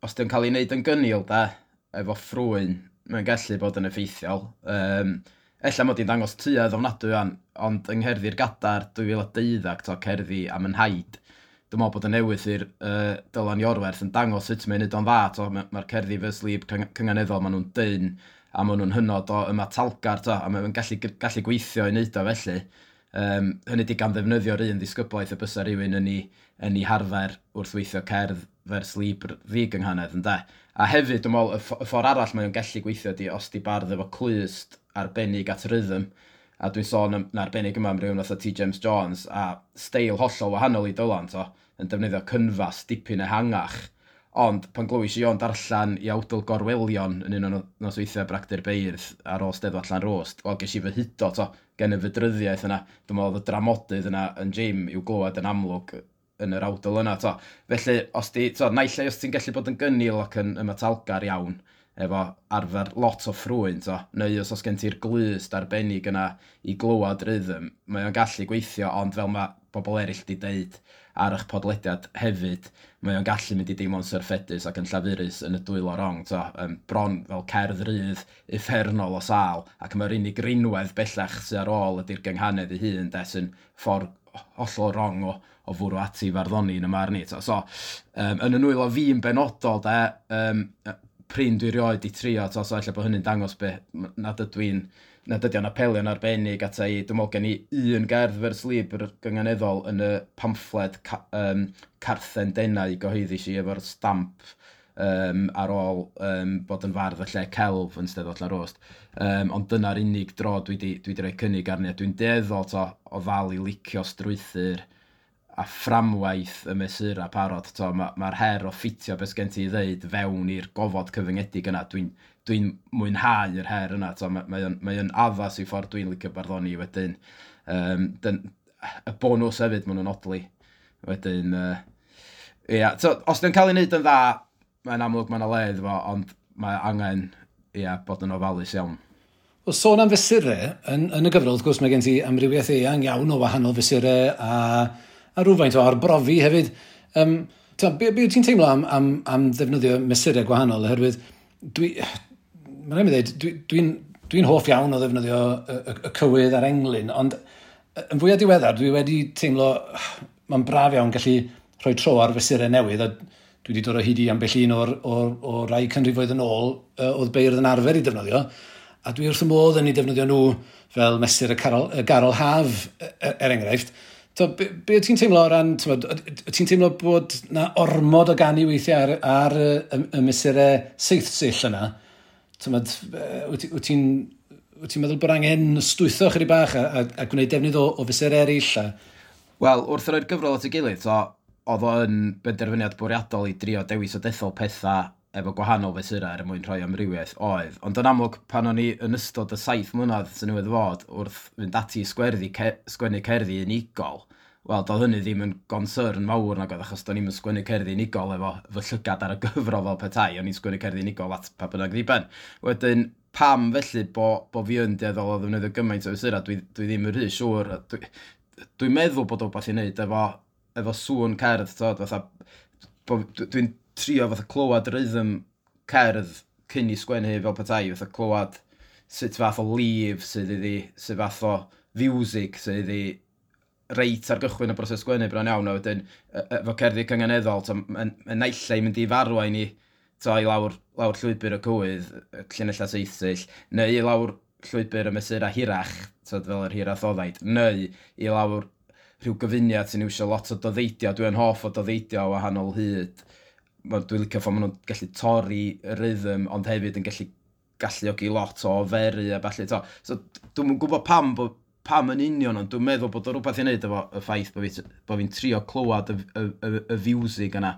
[SPEAKER 7] os di'n cael ei wneud yn gynnil, de, efo ffrwyn, mae'n gallu bod yn effeithiol. Ella mod i'n dangos tuedd ofnadwy an, ond yng Ngherddi'r Gadar 2012, to, cerddi am yn haid. Dwi'n meddwl bod y newydd i'r Dylan Iorwerth yn dangos sut mae'n neud o'n dda. To, mae'r cerddi vers lib cynganeddol, maen nhw'n dyn a maen nhw'n hynod o ymatalgar, to, a maen nhw'n gallu gweithio i wneud o felly. Hynny di gan ddefnyddio'r un ddisgyblaeth y bysa rhywun yn ei harfer wrth weithio cerdd vers libr ddigynghanedd, ynde. A hefyd, dwi'n meddwl, y ffordd arall mae o'n gallu gweithio di os di bardd efo clust arbennig at rhythm, a dwi'n sôn yn arbennig yma am rhywun fatha T. James Jones, a steil hollol wahanol i Dylan, to, yn defnyddio cynfas dipyn ehangach. Ond pan glywis i o'n darllen i awdl Gorwelion yn un o'n nosweithiau Bragdy'r Beirdd ar ôl Steddfod Llanrwst, wel, ges i fy hudo, to, gen y fydryddiaeth yna. Dwi'n meddwl oedd y dramodydd yna yn Jim i'w glywed yn amlwg yn yr awdl yna, to. Felly, os di, to, naill ai os ti'n gallu bod yn gynnil ac yn ymatalgar iawn, efo arfer lot o ffrwyn, to, neu os gen ti'r glust arbennig yna i glywed rhythm, mae o'n gallu gweithio, ond fel mae bobl eraill di deud ar eich podlediad hefyd, mae o'n gallu mynd i deimlo'n syrffedus ac yn llafurus yn y dwylo rong, to, bron fel cerdd rydd uffernol o sâl, ac mae'r unig rinwedd bellach sydd ar ôl ydy'r gynghanedd ei hun, de, sy'n ffordd hollol rong o fwrw ati farddoni yn y marn i. To. So, yn y nwylo fi'n benodol, de, prin dwi rioed i trio, to, so ella bod hynny'n dangos be, nad ydy o'n apelio'n arbennig ata i. Dwi'n meddwl gen i un gerdd vers libr gynganeddol yn y pamffled Carthen Denau gyhoeddus i efo'r stamp ar ôl bod yn fardd y lle celf yn Steddfod Llanrwst. Ond dyna'r unig dro dwi di rhoi cynnig arni. Dwi'n dueddol to, o ddal i licio strwythur a fframwaith y mesurau parod. Mae'r her o ffitio beth gen ti i ddeud fewn i'r gofod cyfyngedig yna. Dwi'n mwynhau yr her yna. Mae o'n addas i ffordd dwi'n licio barddoni wedyn. Y bonws hefyd, maen nhw'n odli. Wedyn, ia, so, os dyn cael ei wneud yn dda, mae'n amlwg mae'n le iddo fo, ond mae angen, ia, bod yn ofalus iawn.
[SPEAKER 1] Wel, sôn am fesurau, yn y gyfrol, wrth gwrs, mae gen ti amrywiaeth eang iawn o wahanol fesurau a rhywfaint o arbrofi hefyd. Be wyt ti'n teimlo am ddefnyddio mesurau gwahanol? Oherwydd, mae'n rhaid mi ddweud, dwi hoff iawn o ddefnyddio y cywydd a'r englyn, ond yn fwyaf diweddar, dwi wedi teimlo, mae'n braf iawn gallu rhoi tro ar fesurau newydd, a dwi wedi dod o hyd i ambell un o'r rai canrifoedd yn ôl oedd beirdd yn arfer i defnyddio, a dwi wrth y modd yn ei defnyddio nhw fel mesur y garol haf, er enghraifft. To, be wyt ti'n teimlo o ran, wyt ti'n teimlo bod na ormod o ganu weithiau ar y mesurau seithsill yna? Wyt ti'n meddwl bod angen stwytho chydig bach a gwneud defnydd o fesurau eraill?
[SPEAKER 7] Wel, wrth roi'r gyfrol at ei gilydd, so, oedd o yn benderfyniad bwriadol i drio dewis o dethol pethau efo gwahanol fesurau er mwyn rhoi amrywiaeth oedd. Ond yn amlwg, pan o'n i yn ystod y 7 mlynedd sy'n newydd fod wrth fynd ati i sgwennu cerddi unigol, wel, doedd hynny ddim yn gonsyrn mawr nag oedd, achos do'n i'm yn sgwennu cerddi unigol efo fy llygad ar y gyfrol fel petai, o'n i'n sgwennu cerddi unigol at pa bynnag ddiben. Wedyn, pam felly bo fi yn dueddol o ddefnyddio gymaint o fesurau, dwi ddim yn rhy siŵr. Dwi'n meddwl bod o wbath i wneud efo sŵn cerdd, t'od, fatha, dwi'n trio fatha clywed rhythm cerdd cyn i sgwennu fel petai, fatha clywed sut fath o lif sydd iddi, sut fath o fiwsig sydd iddi reit ar gychwyn y broses sgwennu bron iawn, a wedyn efo cerddi cynganeddol, mae'n naill ai mynd i farwain i to, i lawr llwybr y cywydd, y llinellau seithsill, neu i lawr llwybr y mesurau hirach, t'od, fel yr hirathoddaid, neu i lawr rhyw gyfuniad sy'n iwsio lot o doddeidio. Dwi'n hoff o doddeidio o wahanol hyd. Dwi'n licio ffordd maen nhw'n gallu torri y rhythm, ond hefyd yn gallu galluogi lot o oferu a ballu. To. So, dwi'm yn gwybod pam yn union, ond dwi'n meddwl bod o rhywbeth i wneud efo y ffaith bo fi'n trio clywed y fiwsig yna,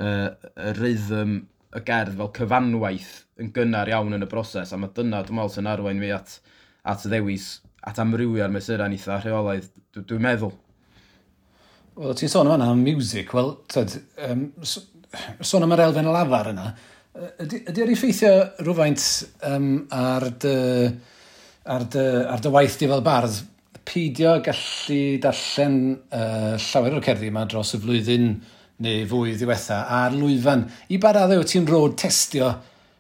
[SPEAKER 7] y rhythm y gerdd fel cyfanwaith yn gynnar iawn yn y broses, a mae dyna, dwi'n meddwl, sy'n arwain fi at ddewis, at amrywio'r mesurau'n eitha rheolaidd, dwi'n meddwl.
[SPEAKER 1] Wel, ti'n sôn yma am music, wel, tyd, sôn am yr elfen lafar yna, ydy o'r effeithio rhywfaint ar dy waith di fel bardd, peidio gallu darllen llawer o'r cerddi yma dros y flwyddyn neu fwy ddiwetha ar lwyfan? I ba raddau wyt ti'n road testio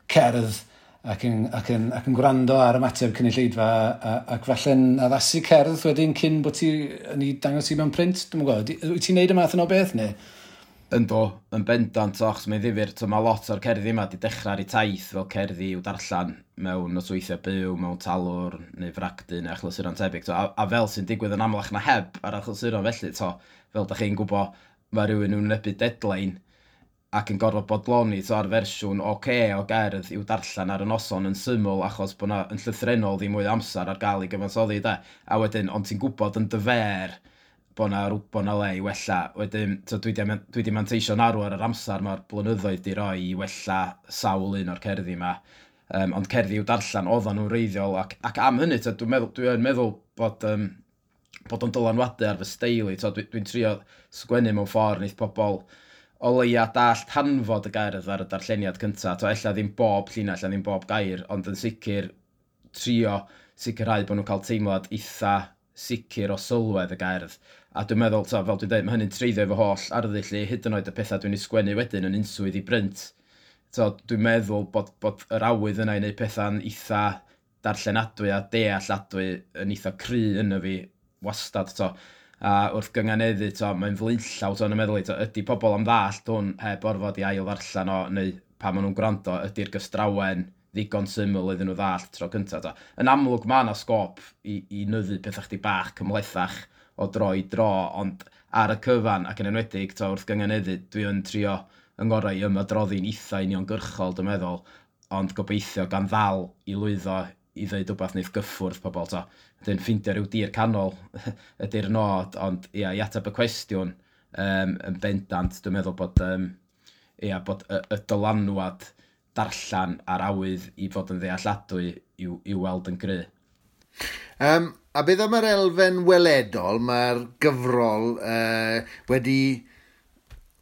[SPEAKER 1] cerdd ac yn gwrando ar ymateb cynulleidfa ac falle'n addasu cerdd wedyn cyn bod ti yn ei dangos i mewn print? Dwi'm yn gwybod, wyt ti'n neud y math yna o beth neu?
[SPEAKER 7] Ynddo, yn bendant, achos mae'n ddifyr, so, mae lot o'r cerddi yma di dechrau ar eu taith fel cerddi i'w darllen mewn nosweithiau byw, mewn talwrn neu fragdy neu achlysuron tebyg. So, a fel sy'n digwydd yn amlach na heb ar achlysuron felly, to, fel da chi'n gwybod, mae rhywun yn wynebu deadline ac yn gorfod bodloni to, ar fersiwn oce o gerdd i'w darllen ar y noson yn syml achos bod na yn llythrennol ddim mwy o amser ar gael i gyfansoddi, de. A wedyn, ond ti'n gwybod yn dy fer bod 'na le i wella. Wedyn, so dwi di manteisio'n arw ar yr amser mae'r blynyddoedd di roi i wella sawl un o'r cerddi yma. Ond cerddi i'w darllen oedden nhw'n wreiddiol ac am hynny, to, dwi'n meddwl bod o'n dylanwadu ar fy steil i. Dwi'n trio sgwennu mewn ffordd wneith pobl o leia dallt hanfod y gerdd ar y darlleniad cyntaf. To, ella ddim bob llinell, ella ddim bob gair, ond yn sicr trio sicrhau bod nhw'n cael teimlad eitha sicr o sylwedd y gerdd. A dwi'n meddwl, to, fel dwi'n dweud, mae hynny'n treiddio efo holl arddull i, hyd yn oed y pethau dwi'n ei sgwennu wedyn yn unswydd i brint. So, dwi'n meddwl bod yr awydd yna i wneud pethau'n eitha darllenadwy a dealladwy yn eitha cry yno fi wastad. To. A wrth gynganeddu, to, mae'n flaenllaw, to, yn y meddwl i, to, ydy pobl am ddallt hwn heb orfod i ail ddarllen o, neu pan maen nhw'n gwrando, ydy'r gystrawen ddigon syml iddyn nhw ddallt tro cyntaf. To. Yn amlwg mae yna sgôp i nyddu pethau chdi bach cymhlethach o dro i dro, ond ar y cyfan ac yn enwedig to, wrth gynganeddu, dwi yn trio yng ngorau i ymadroddi'n eitha uniongyrchol, dwi'n meddwl, ond gobeithio gan ddal i lwyddo i ddweud wbeth wneith gyffwrdd pobl. To. Wedyn ffindio rhyw dir canol ydy'r nod, ond ia, i ateb y cwestiwn yn bendant, dwi'n meddwl bod, ia, bod y dylanwad darllen a'r awydd i fod yn ddealladwy i'w weld yn gry.
[SPEAKER 2] A beth am yr elfen weledol, mae'r gyfrol wedi...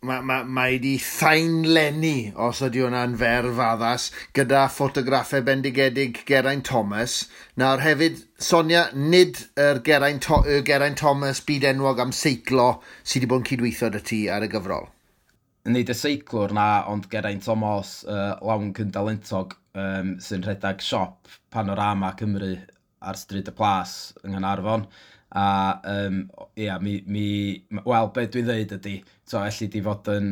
[SPEAKER 2] Mae wedi thaenlenni, os ydy hwnna'n ferf addas, gyda ffotograffau bendigedig Geraint Thomas. Nawr hefyd, Sonia, nid yr Geraint Thomas byd enwog am seiclo sydd wedi bod yn cydweithio â ti ar y gyfrol.
[SPEAKER 7] Nid y seiclwr na, ond Geraint Thomas, lawn cyndalentog, sy'n rhedeg siop Panorama Cymru ar Stryd y Plas yng Nghaernarfon. A ia, wel, be dwi'n dweud ydy, so, elli di fod yn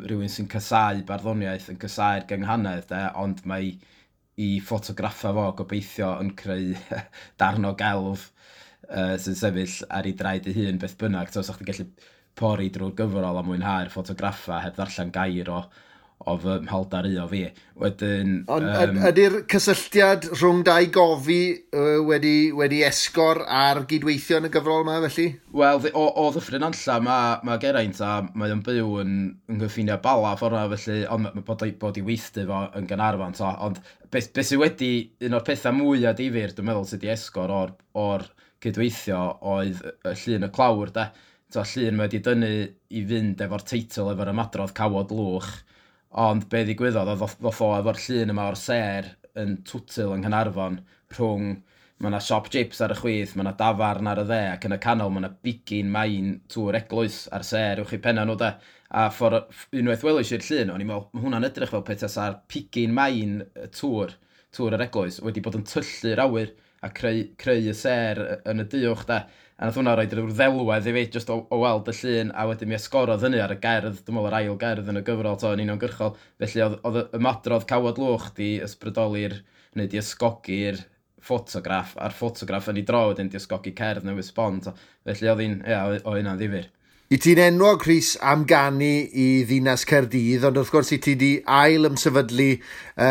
[SPEAKER 7] rhywun sy'n casáu barddoniaeth, yn casáu'r gynghanedd, de, ond mae i ffotograffa fo gobeithio yn creu darn o gelf sy'n sefyll ar ei draed ei hun beth bynnag. So, sa'ch chi'n gallu pori drwy'r gyfrol a mwynhau'r ffotograffa heb ddarllen gair o fy mhaldar i o fi. Wedyn...
[SPEAKER 2] Ond ydy'r cysylltiad rhwng dau gofi wedi esgor ar gydweithio yn y gyfrol yma, felly?
[SPEAKER 7] Wel, o Ddyffryn Nantlla mae Geraint a mae o'n byw yn nghyffiniau Bala ffordd yna, felly, ond bod i weithdy fo yn Gaernarfon. To. Ond beth sydd wedi, un o'r pethau mwyaf difyr, dwi'n meddwl, sydd wedi esgor o'r cydweithio oedd y llun y clawr, de. To, llun mae wedi dynnu i fynd efo'r teitl, efo'r ymadrodd Cawod Lwch. Ond be ddigwyddodd, oedd ddoth o efo'r llun yma o'r sêr yn Twtil yng Nghaernarfon rhwng, mae yna siop chips ar y chwith, mae yna dafarn ar y dde, ac yn y canol mae yna bigyn main tŵr eglwys ar sêr uwch i penna nhw de. A unwaith welais i'r llun, o'n i'n meddwl, mae hwnna'n edrych fel petasa'r pigyn main y tŵr yr eglwys, wedi bod yn tyllu'r awyr a creu y sêr yn y duwch de. A nath hwnna roed rhyw ddelwedd i fi, jyst o weld y llun, a wedyn mi esgorodd hynny ar y gerdd, dwi'n meddwl yr ail gerdd yn y gyfrol, to, yn uniongyrchol. Felly oedd ymadrodd Cawod Lwch di ysbrydoli'r, neu di ysgogi'r ffotograff, a'r ffotograff yn ei dro wedyn di ysgogi cerdd newydd sbon. To. Felly oedd hi'n, ia, oedd hynna'n ddifyr.
[SPEAKER 2] I ti'n enwog, Rhys, am ganu i ddinas Caerdydd, ond wrth gwrs i ti di ail ymsefydlu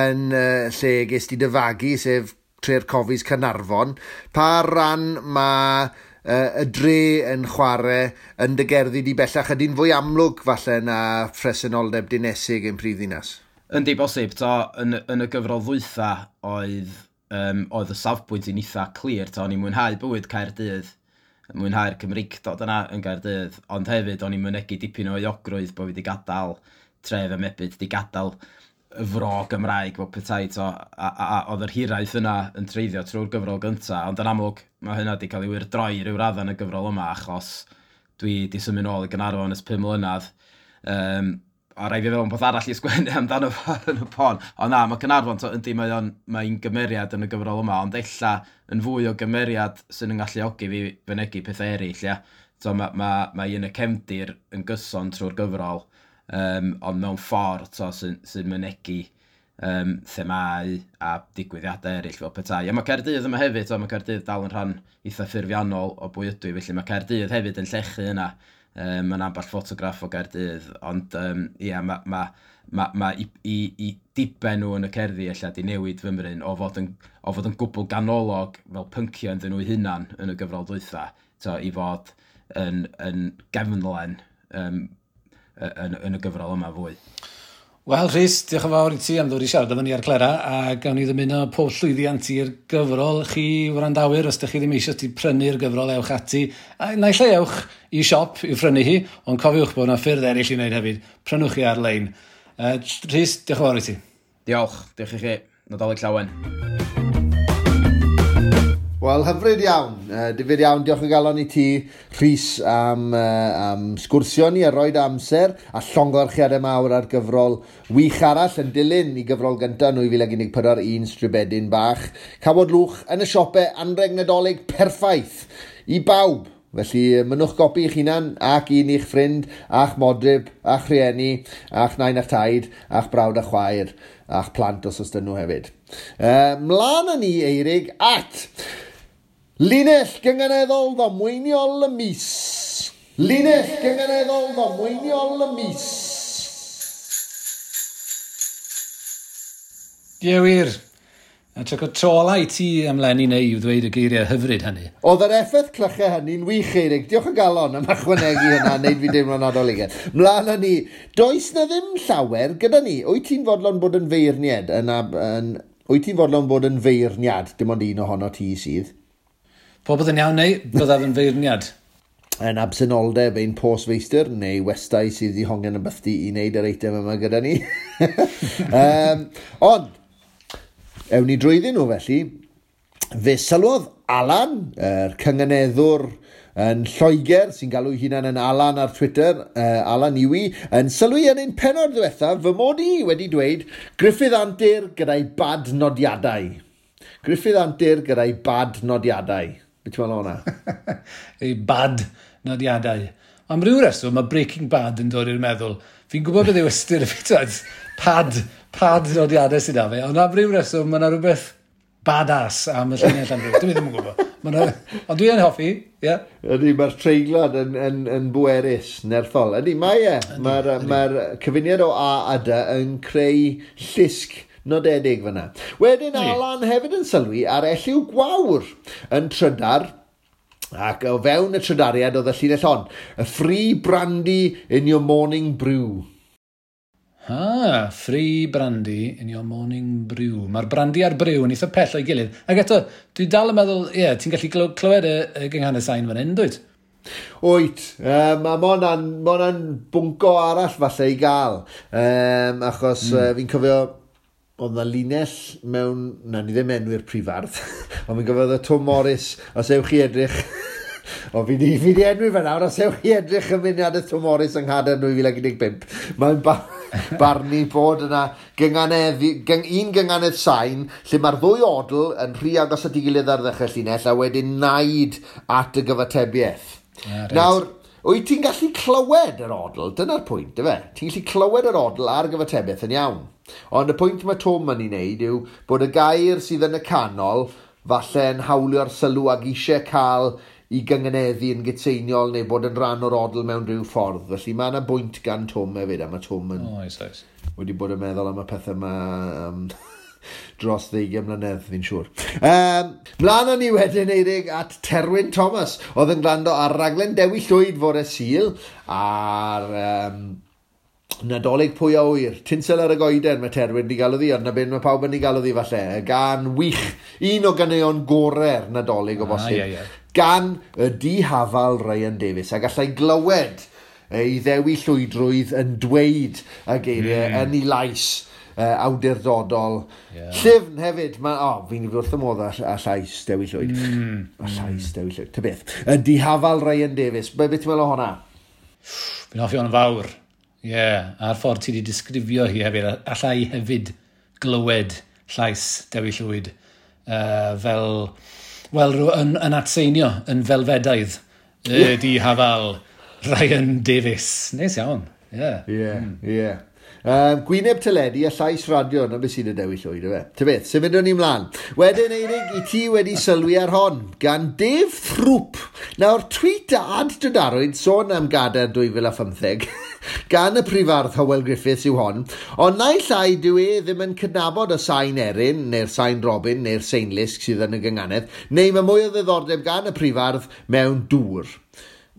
[SPEAKER 2] yn lle ges ti dy fagu, sef Tre'r Cofis Caernarfon. Pa ran mae y dre yn chwarae yn dy gerddi di bellach ydy'n fwy amlwg falle na phresenoldeb dinesig yn prif ddinas?
[SPEAKER 7] Yndi bosib, to, yn y gyfrol ddwytha oedd y safbwynt i'n eitha clir, to, o'n i'n mwynhau bywyd Caerdydd, mwynhau'r Cymreictod yna yn Gaerdydd, ond hefyd o'n i'n mynegi dipyn o euogrwydd bod fi wedi gadael tref y mebyd, wedi gadael y fro Gymraeg fel petai, to, a oedd yr hiraeth yna yn treiddio trwy'r gyfrol gynta, ond yn amlwg mae hynna wedi cael ei wyrdroi ryw radda yn y gyfrol yma, achos dwi wedi symud nôl i Gaernarfon ers 5 mlynedd. A rai fi fewn peth arall i sgwennu amdano fo yn y pon. Ond na, mae Caernarfon, to, yndi, mae'n gymeriad yn y gyfrol yma, ond ella yn fwy o gymeriad sy'n yn galluogi fi fynegi pethau eraill, ia. So, mae yn y cefndir yn gyson trwy'r gyfrol, ond mewn ffordd sy'n mynegi themâu a digwyddiadau eraill fel petai. A mae Caerdydd yma hefyd, mae Caerdydd dal yn rhan eitha ffurfiannol o bwy ydw i, felly mae Caerdydd hefyd yn llechu yna. Mae'n ambell ffotograff o Gaerdydd, ond ia, mae i diben nhw yn y cerddi ella di newid fymryn o fod yn gwbl ganolog fel pynciau ynddyn nhw hunan yn y gyfrol dwytha, to, i fod yn gefnlen yn y gyfrol yma fwy.
[SPEAKER 1] Wel, Rhys, diolch yn fawr i ti am ddod i siarad efo ni ar Clera, a gawn ni ddymuno pob llwyddiant i'r gyfrol. Chi wrandawyr, os ydych chi ddim eisiau ti prynu'r gyfrol, ewch ati. A naill ai ewch i siop i'w phrynu hi, ond cofiwch bod yna ffyrdd eraill i wneud hefyd. Prynwch chi ar-lein. Rhys, diolch yn fawr i ti.
[SPEAKER 7] Diolch, diolch i chi. Nadolig llawen.
[SPEAKER 2] Wel, hyfryd iawn. Difyr iawn, diolch o galon i ti, Rhys, am sgwrsio ni a roed amser a llongyfarchiadau mawr ar gyfrol wych arall yn dilyn i gyfrol gyntaf 2014, Un Stribedyn Bach. Cawod Lwch yn y siopau, anrheg Nadolig perffaith i bawb. Felly, mynnwch gopi i'ch hunan ac un i'ch ffrind, a'ch modryb, a'ch rhieni, a'ch nain a'ch taid, a'ch brawd a chwaer, a'ch plant os oes dyn nhw hefyd. Mlaen â ni, Eirig, at Linell gynganeddol ddamweiniol y mis. Linell gynganeddol ddamweiniol y mis.
[SPEAKER 1] Ie wir. A tro trola i ti am Lenny neu i'w ddweud y geiriau hyfryd hynny.
[SPEAKER 2] Oedd yr effaith clychau hynny'n wych, Eirig. Diolch o galon am ychwanegu hynna, wneud fi deimlo'n nadoligaidd. Mlaen â ni. Does na ddim llawer gyda ni. Wyt ti'n fodlon bod yn feirniad? Wyt ti'n fodlon bod yn feirniad? Dim ond un ohono ti sydd.
[SPEAKER 1] Popeth yn iawn neu byddaf yn feirniad.
[SPEAKER 2] Yn absenoldeb ein postfeistr neu westai sydd wedi hongian yn bythdi i wneud yr eitem yma gyda ni. Ond, ewn ni drwyddyn nhw felly. Fe sylwodd Alan, yr cynganeddwr yn Lloegr, sy'n galw hunan yn Alan ar Twitter, Alan Iwi, yn sylwi yn ein pennod ddiwethaf fy mod i wedi dweud Gruffydd Antur gyda'i bad nodiadau. Gruffydd Antur gyda'i bad nodiadau. Be ti'n meddwl o hwnna?
[SPEAKER 1] Ei bad nodiadau. Am ryw reswm, mae Breaking Bad yn dod i'r meddwl. Fi'n gwybod beth yw ystyr y ffitad. Pad nodiadau sydd â fe. Ond am ryw reswm, mae yna rhywbeth badass am y llinell am ryw. Dwi ddim yn gwybod. Ond dwi yn hoffi, ie. Yeah.
[SPEAKER 2] Ydy, mae'r treiglad yn bwerus, nerthol. Ydy, mae e. Mae'r cyfuniad o A a D yn creu llusg nodedig fyna. Wedyn Alan hefyd yn sylwi ar Elliw Gwawr yn trydar, ac o fewn y trydariad oedd y llinell hon. A free brandy in your morning brew.
[SPEAKER 1] Ah, free brandy in your morning brew. Mae'r brandy a'r brew yn eitha pell o'i gilydd. Ac eto, dwi dal yn meddwl, ie, yeah, ti'n gallu clywed y gynghanedd sain fan hyn, dwyt?
[SPEAKER 2] Wyt, a mae hwnna'n bwnco arall falle i gael. Achos fi'n cofio, oedd na linell mewn, na ni ddim enwi'r prifardd, ond fi'n cofio oedd y Tom Morris, os ewch chi edrych, o fi di enwi fe nawr, os ewch chi edrych yn mudiad y Tom Morris yng Nghadern 2015, mae'n barnu bod yna un gynganedd sain, lle mae'r ddwy odl yn rhy agos at ei gilydd ar ddechrau llinell, a wedyn naid at y gyfatebiaeth.
[SPEAKER 1] Right.
[SPEAKER 2] Nawr, wyt ti'n gallu clywed yr odl, dyna'r pwynt, ife? Ti'n gallu clywed yr odl a'r gyfatebiaeth yn iawn. Ond y pwynt mae Tom yn ei wneud yw bod y gair sydd yn y canol falle yn hawlio'r sylw ag eisiau cael i gynganeddu yn gytseiniol neu bod yn rhan o'r odl mewn rhyw ffordd. Felly mae yna bwynt gan Tom hefyd, a mae Tom yn
[SPEAKER 1] oes.
[SPEAKER 2] wedi bod yn meddwl am y pethau yma dros 20 mlynedd, fi'n siŵr. Mlaen â ni wedyn, Eirig, at Terwyn Thomas, oedd yn gwrando ar raglen Dewi Llwyd fore Sul, a'r Nadolig pwy a ŵyr, tinsel ar y goeden mae Terwyn di galw ddi, ond na beth mae pawb yn ei galw ddi falle. Y gan wych, un o ganeuon gorau'r Nadolig o bosib.
[SPEAKER 1] Yeah, yeah.
[SPEAKER 2] Gan y dihafal Ryan Davies, a gallai glywed ei ddewi llwydrwydd yn dweud y geiriau yn ei lais awdurdodol.
[SPEAKER 1] Yeah.
[SPEAKER 2] Llyfn hefyd, fi'n wrth y modd â llais Dewi Llwyd. A llais Dewi Llwyd, ta beth. Y dihafal Ryan Davies, beth ti'n meddwl o hwnna?
[SPEAKER 1] Fi'n hoffi hwn fawr. Ie, yeah, a'r ffordd ti wedi disgrifio hi hefyd, allai hefyd glywed llais Dewi Llwyd fel, wel, yn atseinio, yn felfedaidd, y dihafal Ryan Davies. Neis iawn, ie.
[SPEAKER 2] Ie, ie. Gwyneb teledu a llais radio, na beth sy'n y Dewi Llwyd, yfe. Ta beth, symudwn ni mlaen. Wedyn, Eirig, i ti wedi sylwi ar hon, gan Dave Throop. Nawr, tweet a ad dydarwyd sôn am Gadair 2015, gan y prifardd Hywel Griffiths yw hon, ond naill ai dyw e ddim yn cydnabod y sain erin, neu'r sain robin, neu'r seinlusg sydd yn y gynganedd, neu mae mwy o ddiddordeb gan y prifardd mewn dŵr.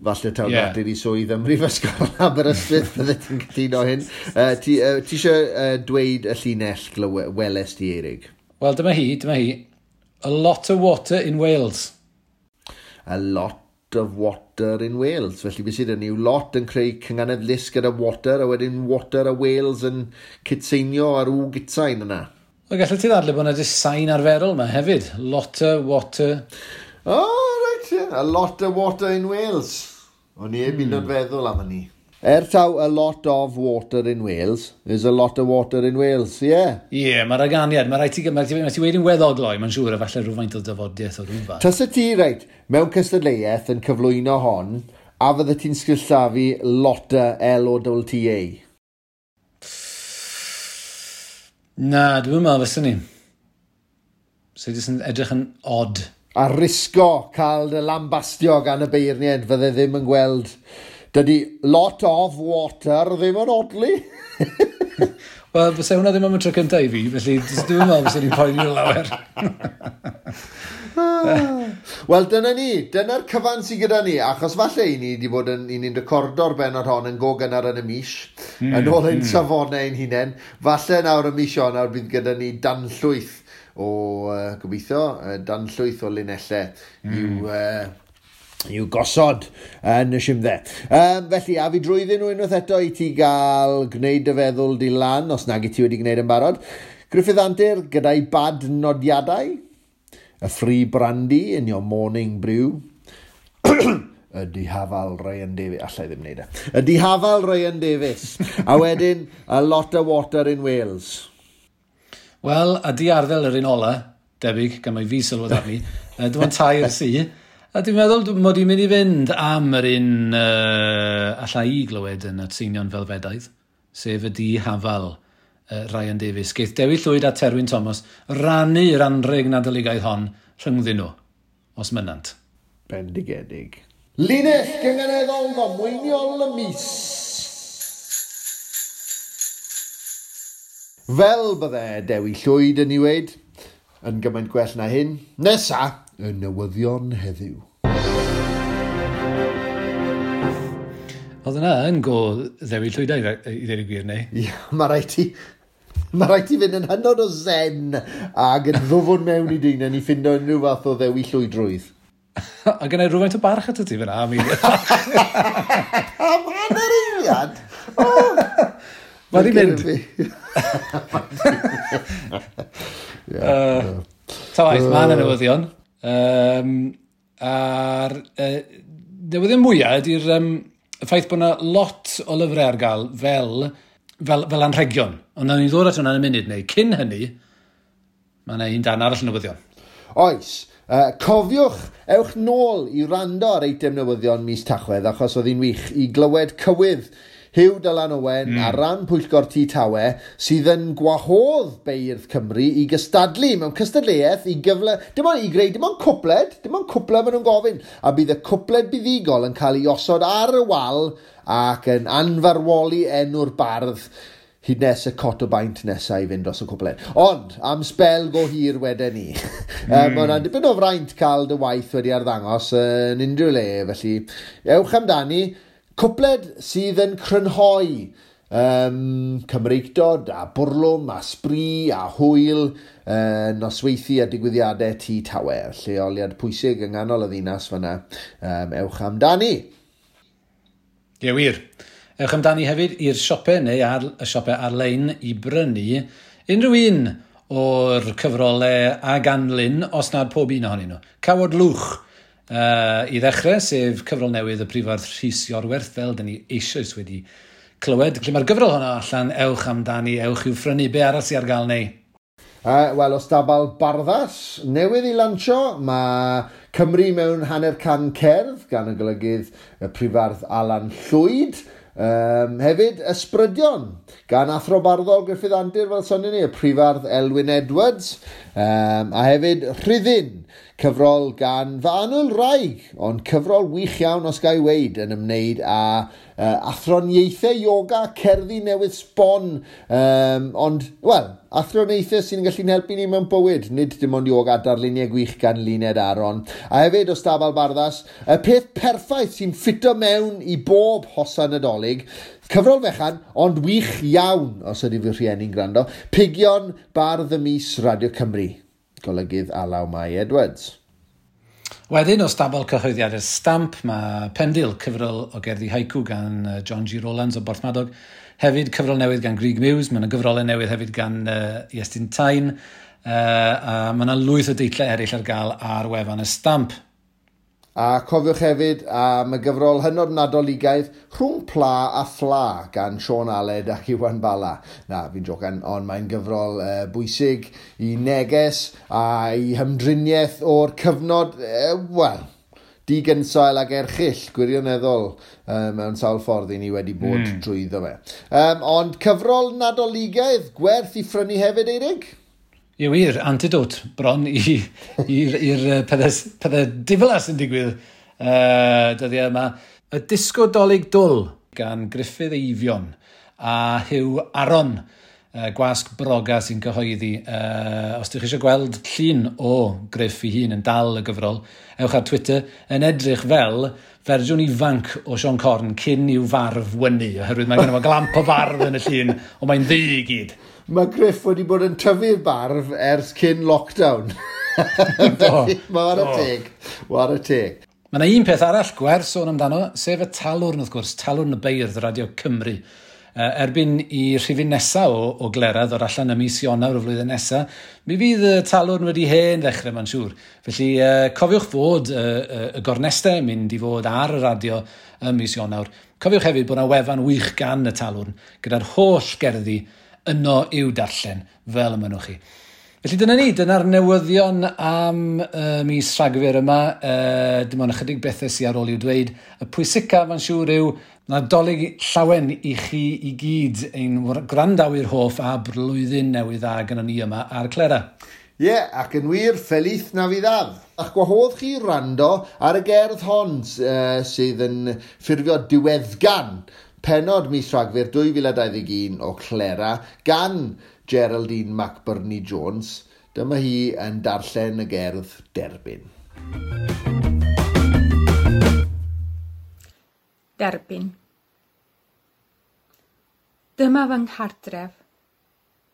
[SPEAKER 2] Falle taw natur i swydd ym Mhrifysgol Aberystwyth, bydde ti'n cytuno hyn. Ti eisiau dweud y llinell weles di, Eirig?
[SPEAKER 1] Wel, dyma hi. A lot of water in Wales.
[SPEAKER 2] A lot of water in Wales. Felly beth sydd yn yw lot yn creu cynganedd lusg gyda water, a wedyn water a Wales yn cytseinio ar w gytsain yna.
[SPEAKER 1] Wel, gallu ti ddadle bod yna jyst sain arferol yma hefyd. Lot of water.
[SPEAKER 2] Oh, right, yeah. A lot of water in Wales. O'n i heb un o'r feddwl am hynny. Taw a lot of water in Wales, there's a lot of water in Wales, yeah.
[SPEAKER 1] Ie, yeah, mae'r aganiad, mae rhaid ti, mae ti wedi'n weddol gloi, mae'n siŵr, a falle rhywfaint o dyfodiaeth o rhywfaint.
[SPEAKER 2] Tasa ti, reit, mewn cystadleuaeth yn cyflwyno hon, a fydde ti'n sgrillafu Lotta, L-O-T-T-A?
[SPEAKER 1] Na, dwi'n meddwl fyswn ni. So, jyst yn edrych yn odd.
[SPEAKER 2] A risgo cael dy lambastio gan y beirniaid fydde ddim yn gweld. Dydy lot of water ddim yn odli.
[SPEAKER 1] Wel, fysa hwnna ddim am y tro cyntaf i fi, felly dwi'n meddwl fysa ni'n poeni lawer.
[SPEAKER 2] Wel, dyna ni. Dyna'r cyfan sydd gyda ni, achos falle i ni wedi bod yn, i ni'n recordo'r bennod hon yn go gynnar yn y mis, yn ôl ein safonau ein hunain. Falle nawr y mis Ionawr bydd gyda ni danllwyth o, gobeithio, danllwyth o linellau i'w gosod yn y simdde. Felly, a fi drwyddyn nhw unwaith eto i ti gael gwneud dy feddwl di lan, os nag i ti wedi gwneud yn barod. Gruffydd Antur gyda'i bad nodiadau, y free brandy in your morning brew, y dihafal Ryan Davies, allai ddim wneud e, y dihafal Ryan Davies, a wedyn a lot of water in Wales.
[SPEAKER 1] Wel, a di arddel yr un ola, debyg, gan mai fi sylwodd arni, dim ond tair sy. A dwi'n meddwl mod i'n mynd i fynd am yr un allai i glywed yn atseinion felfedaidd, sef y dihafal Ryan Davies. Geith Dewi Llwyd a Terwyn Thomas rannu'r anrheg Nadoligaidd hon rhyngddyn nhw, os mynant.
[SPEAKER 2] Bendigedig. Linell gynganeddol ddamweiniol y mis. Fel bydde Dewi Llwyd yn ei weud, yn gymaint gwell na hyn. Nesa, y newyddion heddiw.
[SPEAKER 1] Oedd yna yn go Ddewi Llwyd i ddweud y gwir, neu?
[SPEAKER 2] Ie, mae rhaid ti fynd yn hynod o zen ac yn ddwfwn mewn i dyn i ffindo unrhyw fath o Ddewi Llwydrwydd.
[SPEAKER 1] A gynna i rhywfaint o barch atat ti fyna.
[SPEAKER 2] Am hanner eiliad?
[SPEAKER 1] Mae di mynd. Ta waith, mae yna newyddion. A'r newyddion mwyaf ydy'r y ffaith bod yna lot o lyfrau ar gael fel anrhegion. Ond nawn ni ddod at hwnna yn y munud neu. Cyn hynny, mae yna un dan arall newyddion.
[SPEAKER 2] Oes. Cofiwch, ewch nôl i rando ar eitem newyddion mis Tachwedd, achos oedd hi'n wych i glywed cywydd Huw Dylan Owen ar ran Pwyllgor Tŷ Tawe sydd yn gwahodd beirdd Cymru i gystadlu mewn cystadleuaeth i gyfle, dim ond i greu, dim ond cwpled maen nhw'n gofyn, a bydd y cwpled buddugol yn cael ei osod ar y wal ac yn anfarwoli enw'r bardd hyd nes y cot o baint nesaf i fynd dros y cwpled. Ond, am sbel go hir wedyn ni. Mae hwnna'n dipyn o fraint cael dy waith wedi arddangos yn unrhyw le, felly ewch amdani. Cwpled sydd yn crynhoi Cymreictod a bwrlwm a sbri a hwyl, nosweithi a digwyddiadau Tŷ Tawe, lleoliad pwysig yng nghanol y ddinas fyna. Ewch amdani.
[SPEAKER 1] Ie, wir. Ewch amdani hefyd i'r siopau neu ar y siopau ar-lein i brynu unrhyw un o'r cyfrolau a ganlyn, os nad pob un ohonyn nhw. Cawod Lwch i ddechrau, sef cyfrol newydd y prifardd Rhys Iorwerth, fel dyn ni eisoes wedi clywed. Felly mae'r gyfrol honno allan, ewch amdani, ewch i'w phrynu. Be arall sydd ar gael neu?
[SPEAKER 2] Wel, o stabal Barddas newydd i lansio, mae Cymru mewn hanner can cerdd gan y golygydd y prifardd Alan Llwyd. Hefyd, Ysbrydion gan athro barddol Gruffydd Antur, fel sonion ni, y prifardd Elwyn Edwards, a hefyd Rhuddin, cyfrol gan fy annwyl wraig, ond cyfrol wych iawn os ga i weud, yn ymwneud â athroniaethau yoga, cerddi newydd sbon, ond, wel, athroniaethau sy'n gallu'n helpu ni mewn bywyd, nid dim ond yoga, darluniau gwych gan Luned Aron. A hefyd o Stabal Barddas, y peth perffaith sy'n ffito mewn i bob hosan Nadolig, cyfrol fechan, ond wych iawn, os ydy fy rhieni'n gwrando, Pigion Bardd y Mis Radio Cymru, golygydd Alaw Mai Edwards.
[SPEAKER 1] Wedyn, o stabal cyhoeddiadau'r Stamp, mae Pendil, cyfrol o gerddi haiku gan John G. Rowlands o Borthmadog. Hefyd, cyfrol newydd gan Grug Muse, mae yna gyfrolau newydd hefyd gan Iestyn Tyne, a mae yna lwyth o deitlau eraill ar gael ar wefan y Stamp.
[SPEAKER 2] A cofiwch hefyd am y gyfrol hynod Nadoligaidd Rhwng Pla a Phla gan Siôn Aled ac Iwan Bala. Na, fi'n jocan, ond mae'n gyfrol bwysig i neges a i hymdriniaeth o'r cyfnod, wel, digynsail ag erchyll, gwirioneddol, mewn sawl ffordd i ni wedi bod drwyddo fe. Ond cyfrol Nadoligaidd gwerth i phrynu hefyd, Eirig?
[SPEAKER 1] Ie wir, antidote bron i'r pethau diflas sy'n digwydd dyddiau yma. Y Disgo Dolig Dwl gan Gruffydd Eifion a Huw Aron. Gwasg Broga sy'n cyhoeddi. Os ydych chi eisiau gweld llun o Griff ei hun yn dal y gyfrol, ewch ar Twitter yn edrych fel fersiwn ifanc o Siôn Corn cyn i'w farf wynu, oherwydd mae genno fo glamp o farf yn y llun, ond mae'n ddu i gyd.
[SPEAKER 2] Mae Griff wedi bod yn tyfu'r barf ers cyn lockdown. Felly, mae ar y teg. War y teg.
[SPEAKER 1] Mae yna un peth arall gwerth sôn amdano, sef y Talwrn wrth gwrs, Talwrn y Beirdd Radio Cymru. Erbyn i rhifyn nesaf o Glera ddod allan ym mis Ionawr y flwyddyn nesaf, mi fydd y Talwrn wedi hen ddechrau, mae'n siŵr. Felly cofiwch fod y gornestau yn mynd i fod ar y radio ym mis Ionawr. Cofiwch hefyd bod yna wefan wych gan y Talwrn, gyda'r holl gerddi yno i'w darllen, fel y mynnwch chi. Felly dyna ni, dyna'r newyddion am mis Rhagfyr yma. Dim ond ychydig bethau sydd ar ôl i'w dweud. Y pwysica, mae'n siŵr, yw Nadolig llawen i chi i gyd, ein gwrandawyr hoff a blwyddyn newydd dda gyda ni yma ar Clera.
[SPEAKER 2] Ie, yeah, ac yn wir, Feliz Navidad. A'ch gwahodd chi rando ar y gerdd hon sydd yn ffurfio diweddgan pennod mis Rhagfyr 2021 o Clera gan Geraldine McBurney Jones. Dyma hi yn darllen y gerdd Derbyn.
[SPEAKER 8] Derbyn. Dyma fy nghartref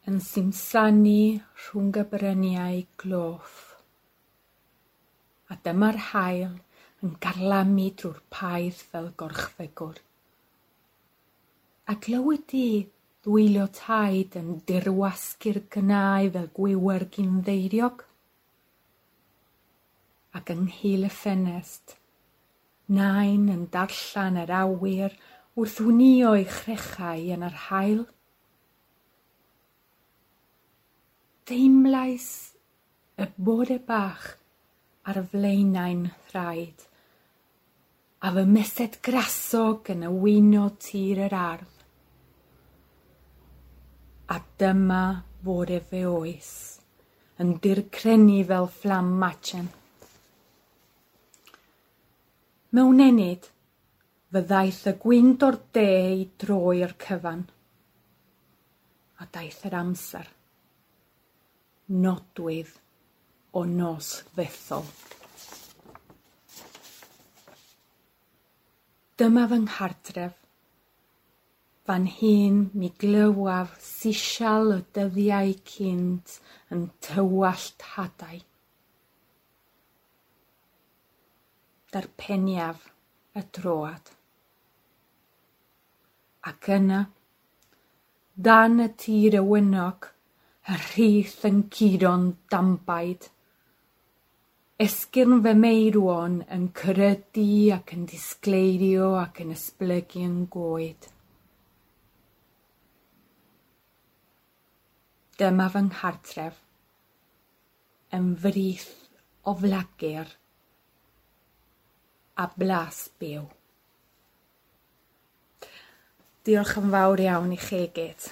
[SPEAKER 8] yn simsanu rhwng y bryniau gloff. A dyma'r haul yn garlamu drwy'r paith fel gorchfygwr. A glywyd di ddwylio taid yn dirwasgu'r gnau fel gwiwer ginddeiriog. Ac ynghil y ffenest, nain yn darllen yr awyr wrth wnïo ei chrechau yn yr haul. Teimlais y bore bach ar flaenau'n thraed, a fy mesed grasog yn y wyno tir yr ardd. A dyma fore fe oes, yn dircrenu fel fflam machen. Mewn ennyd, fyddaeth y gwynt o'r de i droi'r cyfan. A daeth yr amser. Nodwydd o nos ddethol. Dyma fy nghartref. Fan hyn mi glywaf sisial y dyddiau cynt yn tywallt hadau. Darpeniaf y troad. Ac yna, dan y tir y wynog, y rhith yn curo'n dambaid. Esgyrn fy meirwon yn crydu ac yn disgleirio ac yn esblygu yn goed. Dyma fy nghartref, yn frith o flagur a blas byw. Diolch yn fawr iawn i chi gyd.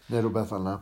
[SPEAKER 2] Neu rhywbeth fel yna.